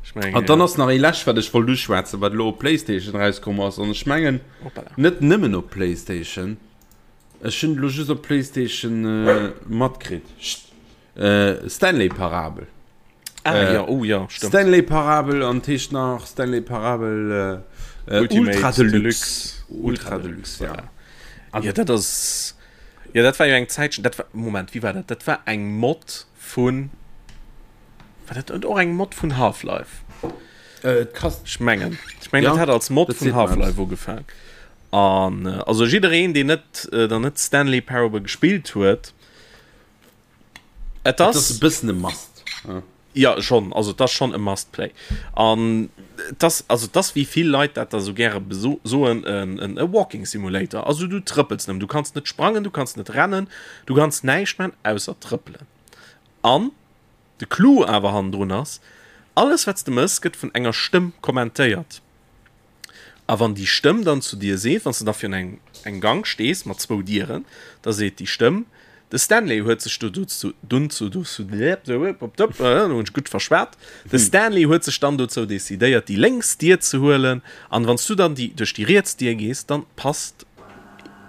Speaker 3: Ech mengen,
Speaker 2: An dann
Speaker 3: ja.
Speaker 2: ass nach ee lescht, wat ech wollt uschwätzen, wat elo op Playstation rauskomm ass. An ech mengen,
Speaker 3: Hoppala.
Speaker 2: net nëmmen op Playstation. Ech hunn et elo just op Playstation äh, matkritt. Chut. Äh, Stanley Parabel.
Speaker 3: Ah,
Speaker 2: Äh,
Speaker 3: ja, oh ja, stimmt.
Speaker 2: Stanley Parabel an heescht nach Stanley Parabel äh, äh,
Speaker 3: Ultimate
Speaker 2: Ultra Deluxe.
Speaker 3: Deluxe.
Speaker 2: Ultra Deluxe, ja.
Speaker 3: Voilà. Ja, dat ass. Ja, dat war jo eng Zäitchen. Dat war, Moment, wéi war dat? Dat war eng Mod vun. War dat net och eng Mod vun Half-Life?
Speaker 2: Äh, et kasst.
Speaker 3: Ech mengen. Ech mengen,
Speaker 2: Ja,
Speaker 3: dat hat als Mod
Speaker 2: dat
Speaker 3: vun
Speaker 2: seet mer eppes.
Speaker 3: Half-Life ugefaangen. An äh, also jiddereen, deen net, äh, dann net Stanley Parable gespillt huet, Et
Speaker 2: Et ass
Speaker 3: ass
Speaker 2: e bëssen e Must. Ja.
Speaker 3: Ja schonn, also et ass schonn e Must Play. An et ass, also et ass wéi vill Leit dat da sou gäre soen, en e Walking Simulator. Also du trëppels nëmmen, du kanns net sprangen, du kanns net rennen, du kanns näischt man ausser trëppelen. An de Clou awer hannendrun ass, alles wat s de mëss gëtt vun enger Stëmm kommentéiert. A wann déi Stëmm dann zu dir seet, wann s de da virun engem engem Gank stees mat zwou Dieren, da seet déi Stëmm, De Stanley huet sech do dozou dunn zu dozou hunn ech gutt verschwat, de Stanley huet sech dann dozou decidéiert, déi lénks Dier ze huelen. An wann s du dann déi duerch déi riets Dier gees, dann passt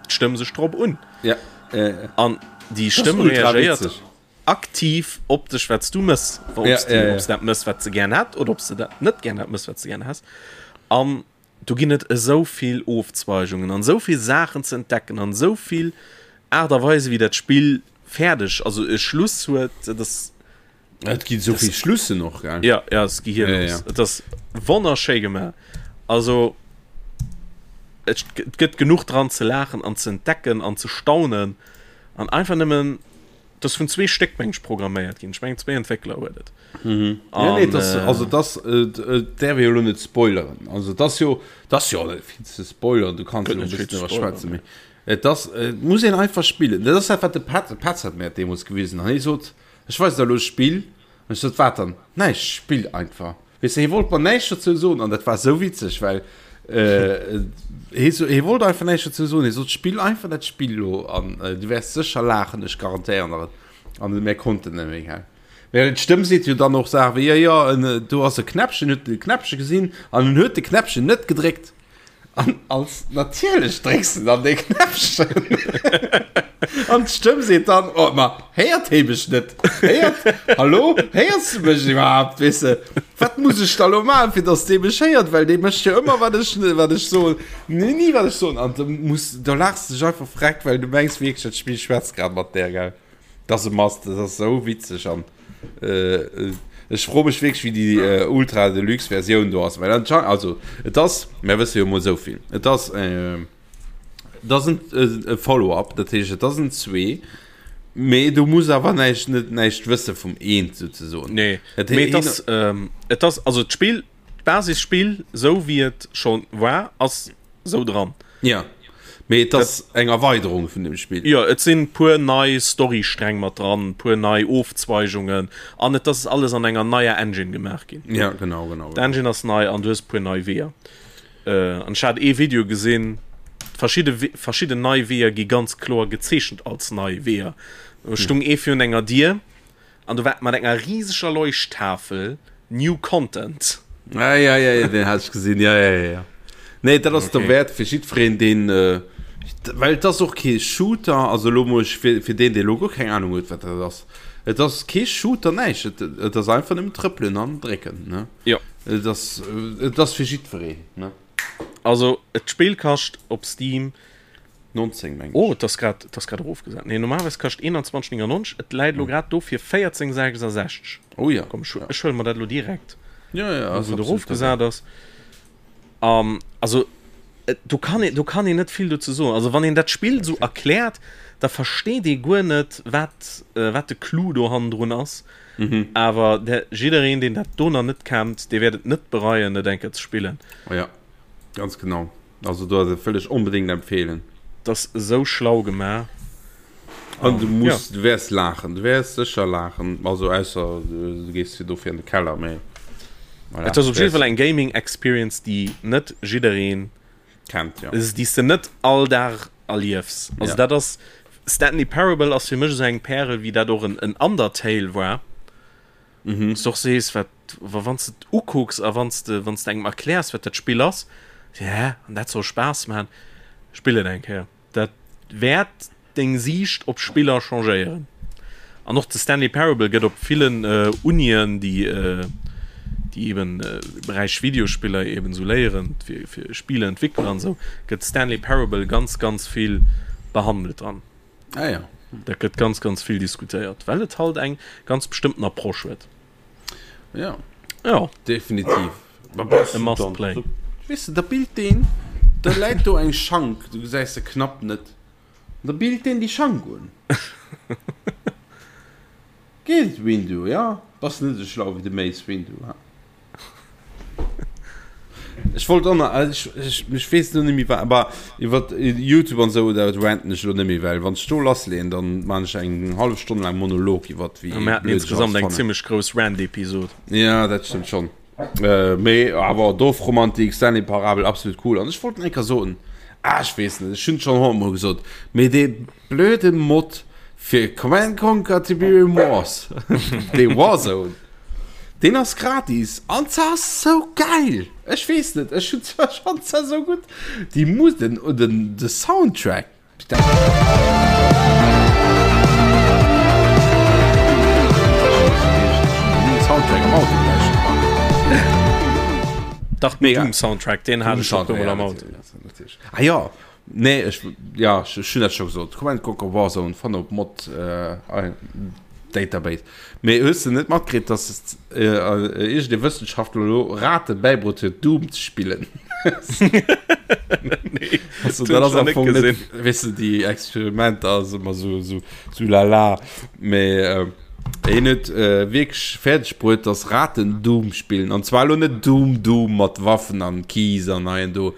Speaker 3: d'Stëmm sech drop un.
Speaker 2: Ja, äh,
Speaker 3: An déi
Speaker 2: das ass
Speaker 3: Stëmm
Speaker 2: ultra
Speaker 3: reagéiert
Speaker 2: witzeg.
Speaker 3: aktiv op dech, wat s du mëss, ob
Speaker 2: Ja,
Speaker 3: s du
Speaker 2: ja, ja.
Speaker 3: ob s dat mëss, wat se gären hätt, oder ob s de dat net gären hätt mëss, wat se gären häss. An do ginn et esou vill Ofzweigungen an esou vill Saachen ze entdecken an esou vill Aart a Weise wéi dat Spill fäerdeg, also e Schluss huet. Dat ass,
Speaker 2: Et ginn esou vill Schlussen och, gell?
Speaker 3: ja, ja, et ass
Speaker 2: Ja, ja,
Speaker 3: gehirlos.
Speaker 2: ja.
Speaker 3: Et ass wonnerschéi gemaach. Also et gëtt genuch dran ze laachen an ze entdecken an ze staunen an einfach nëmmen Dat ass vun zwee Stéck meng ech programméiert ginn. Ech mengen zwee Entwéckler huet et.
Speaker 2: Mhm. Ja, nee, das, äh, also das äh, äh, därf ich jo lo net spoileren. Also das jo das jo net vill ze spoilern, du kannst jo e bëssen iwwer schwätzen, mee et ass äh, muss een einfach spillen. Dat ass dat wat de Pat, de Petz hat mir dat deemools gewisen an hie sot, ech weis der elo e Spill an ech sot, wat dann? Näischt, spill einfach. Weess de, hie wollt mer näischt dozou soen an dat war esou witzeg, well hie so, hie wollt einfach näischt dozou soen. Hie sot, Spill einfach dat Spill elo an du wäers sécher laachen, ech garantéieren der et. An mir konnten net méi, gell. Well d'Stëmm seet jo dann och Saache wéi, jo, jo, en, do ass e Knäppchen, huet de Knäppche gesinn an en huet de Knäppchen net gedréckt. An als natierlech drécks de dann dee Knäppchen. An d'Stëmm seet dann, oh, ma héiert hee mech net? Héiert, hallo, héiers du mech iwwerhaapt? Weess de, wat muss ech da lo maachen, fir dass dee mech héiert? Well dee mécht jo ëmmer, wat ech, wat ech soen. Nee, ni wat ech soen. An du muss, do laachs de dech einfach freck, well du mengs wierklech, dat Spill schwätzt grad mat där, gell? Dat ass e Must, dat ass esou witzeg an ech froe mech wierklech wéi déi Ultra Deluxe Versioun do ass, well anscheinend, also et ass, mär wësse jo mol esou vill, et ass et ass en e Follow-up, dat heescht et ass en zwee, mee du muss awer näischt net näischt wësse vum eent souzesoen.
Speaker 3: Nee, mee et ass et ass also d'Spill, d'Basisspill esou wéi et scho war ass sou dran.
Speaker 2: Ja, mee et ass eng Erweiderung vun dem Spill.
Speaker 3: Jo, et sinn puer nei Storystreng mat dran, puer nei Ofzweigungen an et ass alles an enger neier Engine gemaach ginn.
Speaker 2: Ja, genau, genau.
Speaker 3: D'Engine ass nei an du hues puer nei Weeër. An ech hat ee Video gesinn, verschidde verschidden nei Weeër gi ganz kloer gezeechent als nei Weeër. Do stung ee virun enger Dier An do war mat enger riseger Leuchttafel New Content.
Speaker 2: Ah, ja, ja, ja, den hat ech gesinn. Ja, ja, ja, ja. Nee, dat ass okay. derwäert fir jiddwereen, deen. Äh, well et ass och kee Shooter, also lo muss ech fir, fir deen, dee lo guer keng Ahnung huet, wat dat ass. Et ass kee Shooter, näischt. Et, et ass einfach nëmmen trëppelen an drécken, ne?
Speaker 3: Ja.
Speaker 2: Et ass, et ass fir jiddwereen, ne?
Speaker 3: Also, et d'Spill kascht op Steam
Speaker 2: 19 meng ech.
Speaker 3: Oh, et ass grad, et ass grad erofgesat. Nee, normalerweis kascht 21,99. Et läit elo grad do fir 14,66.
Speaker 2: Oh ja.
Speaker 3: Komm, ech,
Speaker 2: ja.
Speaker 3: ech huele mer dat elo direkt.
Speaker 2: Ja, ja,
Speaker 3: wou
Speaker 2: ass
Speaker 3: et
Speaker 2: absolut
Speaker 3: erofgesat ass. Um, also, et, do kann een, do kann een net vill dozou soen. Also, wann een dat Spill esou erkläert, da versteet ee guer net, wat, äh, wat de Clou do hannendrun ass.
Speaker 2: Mhm.
Speaker 3: Awer der, jiddereen, deen dat do nach net kennt, dee wäert et net bereien, et eng Kéier ze spillen.
Speaker 2: Oh ja, ganz genau. Also do ass et wëll ech onbedéngt empfehlen.
Speaker 3: D'ass esou schlau gemaach.
Speaker 2: An du muss, du wäers laachen, du wäers sécher laachen, also ausser du gees fir dofir an de Keller, mee
Speaker 3: voilà. Et ass op jidde Fall eng Gaming Experience, déi net jiddereen
Speaker 2: kennt, jo.
Speaker 3: Déi s de net all Dag. Erliefs. Also dat ass, Stanley Parable ass fir mech esou eng Pärel, wéi dat och en Undertale war. Wou s de och sees, wat, wa wann s de et ukucks a wann s de, wann s de engem erkläers, wat dat Spill ass, se, hä, an dat soll Spaass maachen? Spill et eng Kéier. Dat wäert deng Siicht op Spiller changéieren. An och de Stanley Parable gëtt op villen Unien, déi déi eben Beräich Videospiller eben esou léieren, fir fir Spieleentwickler an esou, gëtt Stanley Parable ganz ganz vill behandelt dran.
Speaker 2: Ah ja.
Speaker 3: Dat gëtt ganz ganz vill diskutéiert, well et halt eng ganz bestëmmten Approche huet.
Speaker 2: Ja.
Speaker 3: Ja.
Speaker 2: Definitiv.
Speaker 3: E must play.
Speaker 2: Weess de, da billt deen, da läit do eng Schank, du gesäis se knapp net, da billt deen déi Schank un. Geet et, Windu? Ja, bass net esou schlau wéi de Mace Windu, ha? Ech wollt och nach, ech, ech, ech weess elo net méi wat, aber iwwer YouTube an esou, dat ranten ech elo net méi, well wann ech do lassleeën, dann maan ech eng hallef Stonn laang Monolog iwwer
Speaker 3: wéi Mir haten blöd ech alles insgesamt eng fannen. zimmlech grouss Rant-Episod.
Speaker 2: Ja, dat stëmmt schonn. Äh, mee awer Dorfromantik, Stanley Parabel, absolut cool. An ech wollt nach eng Kéier soen, ah, ech weess net, ech hunn et schonn honnertmol gesot, mee dee blöde Mod fir Command Conquer Tiberium Wars, dee Warzone, deen ass gratis an se ass sou geil! Ech weess net, ech hunn zwar schonn se sou gutt, déi Mus, den, den, de Soundtrack, Soundtrack am Auto gelauschtert.
Speaker 3: Dach, den Doom-Soundtrack, deen hat ech och puer Mol am Auto.
Speaker 2: Ah jo, Nee, ech, ja, ech, ech hunn dat scho gesot. Command Conquer Warzone fanne op Mod äh, Database. Mee hues de net matkritt, dass äh, iergend ee Wëssenschaftler elo Rate bäibruet huet, Doom ze spillen?
Speaker 3: Nee,
Speaker 2: Also,
Speaker 3: dat
Speaker 2: dat
Speaker 3: hunn
Speaker 2: ass
Speaker 3: ech
Speaker 2: am
Speaker 3: net
Speaker 2: Fong net,
Speaker 3: gesinn.
Speaker 2: weess de, déi Experimenter ass ëmmer sou, sou, sou lala. Mee äh, hien huet äh, wierklech fäerdeg bruet, dass Raten Doom spillen. An zwar elo net Doom Doom mat Waffen an Keys an hei an do.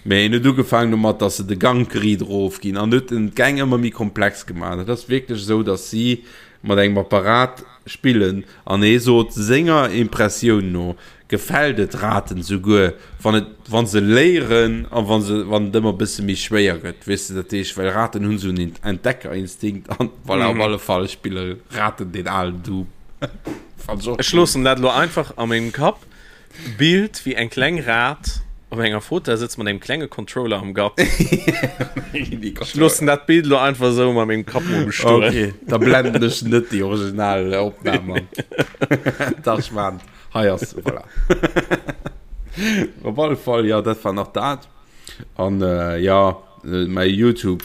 Speaker 2: Mee en huet ugefaangen domat, dass se de Gank riit erof ginn an huet en d'Gäng ëmmer méi komplex gemaach. Dat ass wierklech esou, dass si mat engem Apparat spillen an hee sot, senger Impressioun no gefält et Raten souguer, wann et, wa se léieren a wa se, wann et ëmmer e bësse méi schwéier gëtt, weess de. Dat heescht, well Raten hunn esou en Entdeckerinstinkt an voilà, op alle Fall spille Raten deen alen Doom.
Speaker 3: Fand ech och Ech cool. loossen dat elo einfach a mengem Kapp. Bild wéi eng kleng Rat op enger Fauteuil sëtzt mat engem klenge Controller am Grapp. Ech loossen dat Bild lo einfach esou a mengem Kapp mol bestoen.
Speaker 2: Okay, da blenden ech net déi original Opnam an. Dach, ech maan et. Hei ass se, voilà. Op alle Fall, jo, dat war nach dat. An jo, mäi Youtube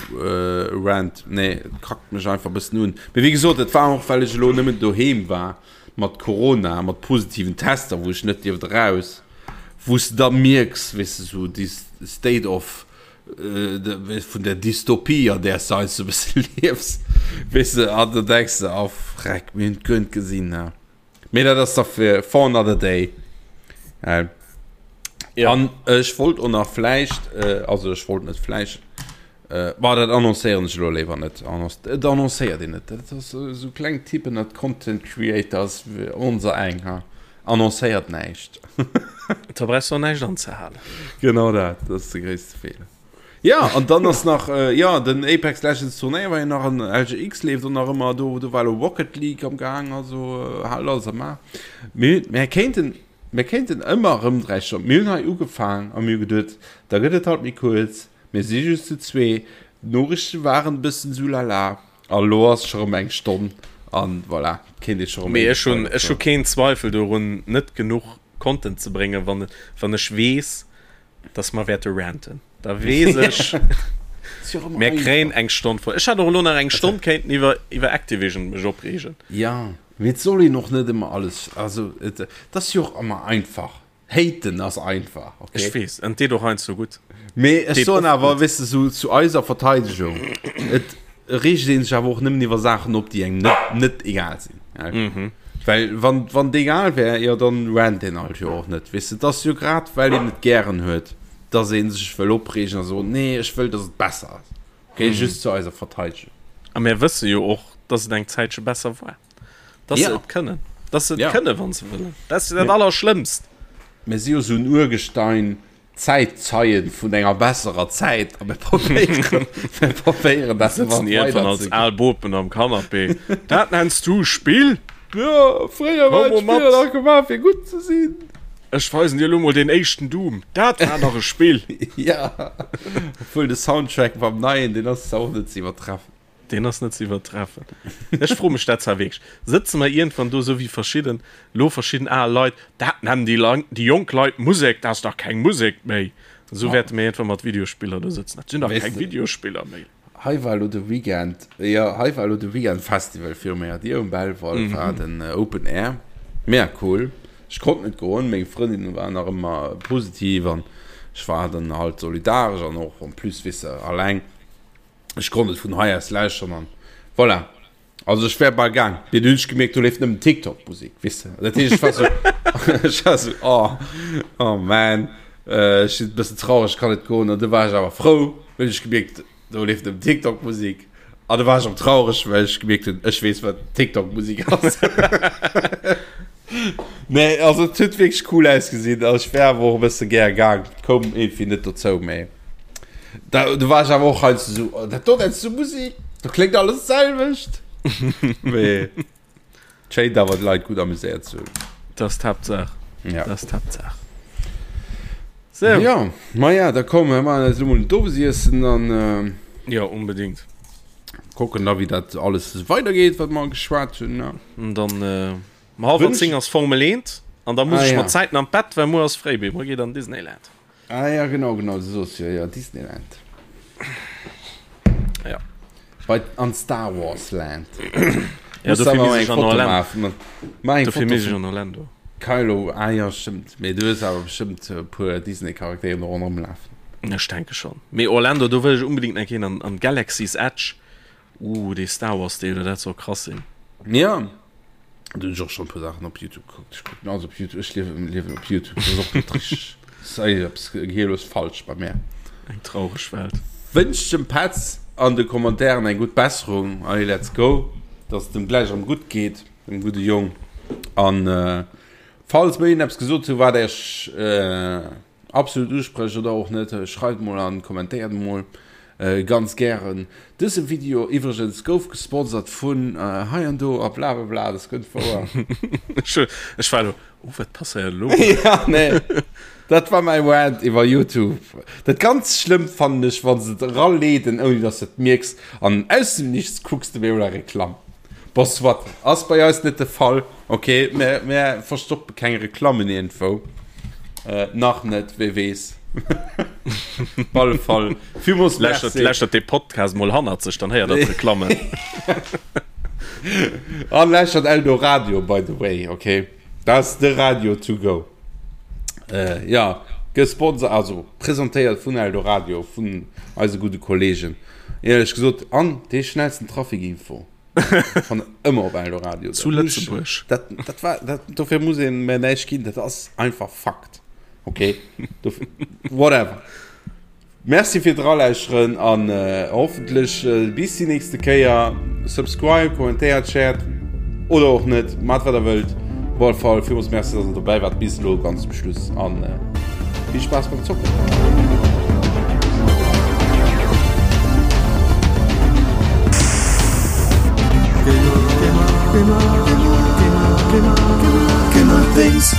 Speaker 2: Rant, nee, et kackt mech einfach e bëssen un. Mee wéi gesot, et war och, well ech elo nëmmen doheem war. mat Corona, mat positiven Tester, wou ech net dierft eraus, wou s de da mierks, weess de, sou déi State of, vun der Dystopie, an där s de heiansdo e bësse liefs, weess de, an da denks de, oh freck, mir hunn et guer net gesinn, ne. Mee dat ass da fir for another day. An ech wollt och nach vläicht, also ech wollt net vläicht, Bah, dat annoncéieren ech elo léiwer net. Et annoncéiert een net. Dat ass esou kleng Typen, dat Content Creators, onser eng, ha, annoncéiert näischt.
Speaker 3: Da brauchs du och näischt anzehalen.
Speaker 2: Genau dat, dat ass de gréisste Feeler. Jo, an dann ass nach, jo, den Apex Legends Turnéier war jo nach an LGX leeft och nach ëmmer. Do, do war elo Rocket League am Gaang, also hal alles am A. Mir, mir kéinten, mir kéinten ëmmer erëm 3 Stonnen, mir hunn hei ugefaang a mir hu geduet, da gëtt et halt méi kuerz. Mir si just zu zwee, d'Noriichte waren e bëssen sou lala a lo ass scho rëm eng Stonn an voilà, kéint ee scho rëm
Speaker 3: Mee ech hunn ech hu keen Zweifel dorun net genuch Content ze bréngen, wann wann ech weess, dass mer wäerte ranten. Da weess ech, mir kréien eng Stonn voll. Ech hätt och elo nach eng Stonn kéinten iwwer iwwer Activision mech opreegen.
Speaker 2: Jo, mee et soll een och net ëmmer alles, also et ass jo och ëmmer einfach. Haten ass einfach,
Speaker 3: okay? Ech weess, an deet och heiansdo gutt.
Speaker 2: Mee ech soen awer, weess de, sou zu eiser Verteidegung, et reegt ee sech awer och nëmmen iwwer Saachen op, déi engem net, net egal sinn. Mhm. Well wann, wann et egal wär, jo dann rant een halt jo och net, weess de. Et ass jo grad, well een et gären huet, dass ee sech wëll opreegen a soen, nee, ech wëll, dass et besser ass. Okay, just zu eiser Verteidegung.
Speaker 3: A mir wësse jo och, dass et eng Zäitche besser war. Dass se et kënnen. Dass se et kënnen, wa se wëllen. Dat ass jo dat Allerschlëmmst.
Speaker 2: Mir si jo esou en Urgestein. Zäitzeien vun enger besserer Zäit a mir probéieren, mir probéieren dat
Speaker 3: Sëtzen iergendwann als al Bopen am Canapé. Dat nenns du Spill?
Speaker 2: Jo, fréier war
Speaker 3: Komm mol
Speaker 2: d'Spiller
Speaker 3: mat.
Speaker 2: nach gemaach fir gutt ze sinn.
Speaker 3: Ech weisen dir elo mol deen éischten Doom. Dat war nach e Spill.
Speaker 2: Ja, obwuel de Soundtrack beim neien, deen ass zwar och net ze iwwertreffen.
Speaker 3: Deen ass net ze iwwertreffen. Ech froe mech dat zwar wierklech. Sëtze mer iergendwann do, esou wéi verschidden, elo verschidden al Leit, dat nennen déi Lang, déi jonk Leit Musek, dat ass dach keng Musek méi. Esou wäerte mir iergendwann mat Videospiller do sëtzen, dat sinn dach
Speaker 2: Weess
Speaker 3: keng
Speaker 2: de.
Speaker 3: Videospiller méi.
Speaker 2: Hei war elo de Weekend, jo, hei war elo de Weekend Festival viru menger Dier um Belval war den Open Air. Mega cool. Ech konnt net goen, meng Frëndin war nach ëmmer positiv an ech war dann halt solidaresch an och en plus, weess de, alleng. Ech konnt et vun hei aus lauschteren an voilà. Also ech wär bal gaang, mee dunn hunn ech gemierkt, do leeft nëmmen TikTok-Musek, weess de. Dat heescht, ech war sou, ech war sou, oh, oh man, ech sinn e bëssen traureg, ech kann net goen. An du war ech awer frou, well ech gemierkt, do leeft nëmmen TikTok-Musek. An du war ech erëm traureg, well ech gemierkt hunn, ech weess, wat TikTok-Musek ass. Nee, also et huet wierklech cool ausgesinn. Also ech wär awer och e bësse gär gaang, koum iergendwéi net dozou, mee da, do war ech awer och heiansdo sou, oh, dat do nenns du Musik? Do kléngt alles d'selwecht. Mee et schéint awer d'Leit gutt amuséiert ze hunn.
Speaker 3: Dat ass d'Haaptsaach.
Speaker 2: Ja.
Speaker 3: Dat ass d'Haaptsaach. Sou.
Speaker 2: Ja, maja, da komm, mir maachen eis elo mol en Owesiessen an.
Speaker 3: Ja, unbedingt.
Speaker 2: Kucken da wéi dat alles weidergeet, wat mer geschwat hunn, ne?
Speaker 3: An dann um hallwer 10 ass Formel 1 an da muss
Speaker 2: Ah,
Speaker 3: ech
Speaker 2: ja.
Speaker 3: mat Zäiten an d'Bett, well muer ass fréi, mee muer geet an Disneyland.
Speaker 2: Ah ja, genau, genau, du soos jo, jo, Disneyland.
Speaker 3: Ja.
Speaker 2: Bei, an Star Wars Land.
Speaker 3: Ja,
Speaker 2: Muss
Speaker 3: dofir
Speaker 2: awer
Speaker 3: misst
Speaker 2: eng
Speaker 3: ech an
Speaker 2: Foto
Speaker 3: Orlando.
Speaker 2: maachen. Mach eng
Speaker 3: Dofir
Speaker 2: Foto
Speaker 3: misst ech
Speaker 2: vum
Speaker 3: an Orlando.
Speaker 2: Kylo, ah ja, stëmmt. Mee du hues awer bestëmmt e puer Disney-Charakteren do ronderëm lafen.
Speaker 3: Ech denke schonn. Mee Orlando, do wëll ech unbedingt nach hin an, an Galaxy's Edge. Uh, dee Star Wars Deel, dat soll krass sinn.
Speaker 2: Ja, do hunn ech och schonn e puer Saachen op Youtube gekuckt. Ech kucken alles op Youtube. Ech liewen, liewen op Youtube. Dat ass och net richteg. Dat ass eppes gehirlos falsch bei mär.
Speaker 3: Eng traureg Welt.
Speaker 2: Wënscht dem Petz an de Commentairen eng gutt Besserung. Allez, let's go. Dass et em gläich erëm gutt geet, dem gudde Jong. An falls mer iergendeppes gesot hunn, wat Iech absolut usprëcht oder och net, schreift mol an kommentéiert mol ganz gären. Dëse Video iwwregens gouf gesponsert vun hei an do a blablabla, das kënnt wouer.
Speaker 3: Ech war elo, oh wat passéiert elo?
Speaker 2: Ja nee, dat war mäi Rant iwwer Youtube. Dat ganz schlëmmt fannen ech wann se et eraleeden ouni dass de et mierks an aus dem Nichts kucks de op eemol eng Reklamm. Bon soit, ass bei eis net de Fall. Ok, mär, mär verstoppe keng Reklammen iergendwou. Äh, nach net, wee weess. Op alle Fall, villmools
Speaker 3: Lauschtert,
Speaker 2: Merci.
Speaker 3: lauschtert dee Podcast mol hannert sech, dann héiert der d'Reklammen.
Speaker 2: An lauschtert Eldoradio, by the way, ok? Dat ass de Radio to go. Äh, ja, gesponsert, also presentéiert vun Eldoradio, vun eise gudde Kollegen. Éierlech gesot, an dee schnellsten Trafikinfo. Van ëmmer op Eldoradio.
Speaker 3: Zu Lëtzebuerg.
Speaker 2: Dat, dat war, dat, dofir muss een mir näischt ginn, dat ass einfach Fakt. Okay? Dofir, whatever. Merci fir d'Ralauschteren an äh, hoffentlech äh, bis déi nächste Kéier. Subscribe, kommentéiert, shared oder och net, mat wat der wëllt. Op alle Fall villmools Merci, dass der dobäi waart bis elo ganz zum Schluss an äh, vill Spaass beim Zocken.
Speaker 1: Gamer, Gamer, Gamer, Gamer, Gamer, Gamer, Gamer Things.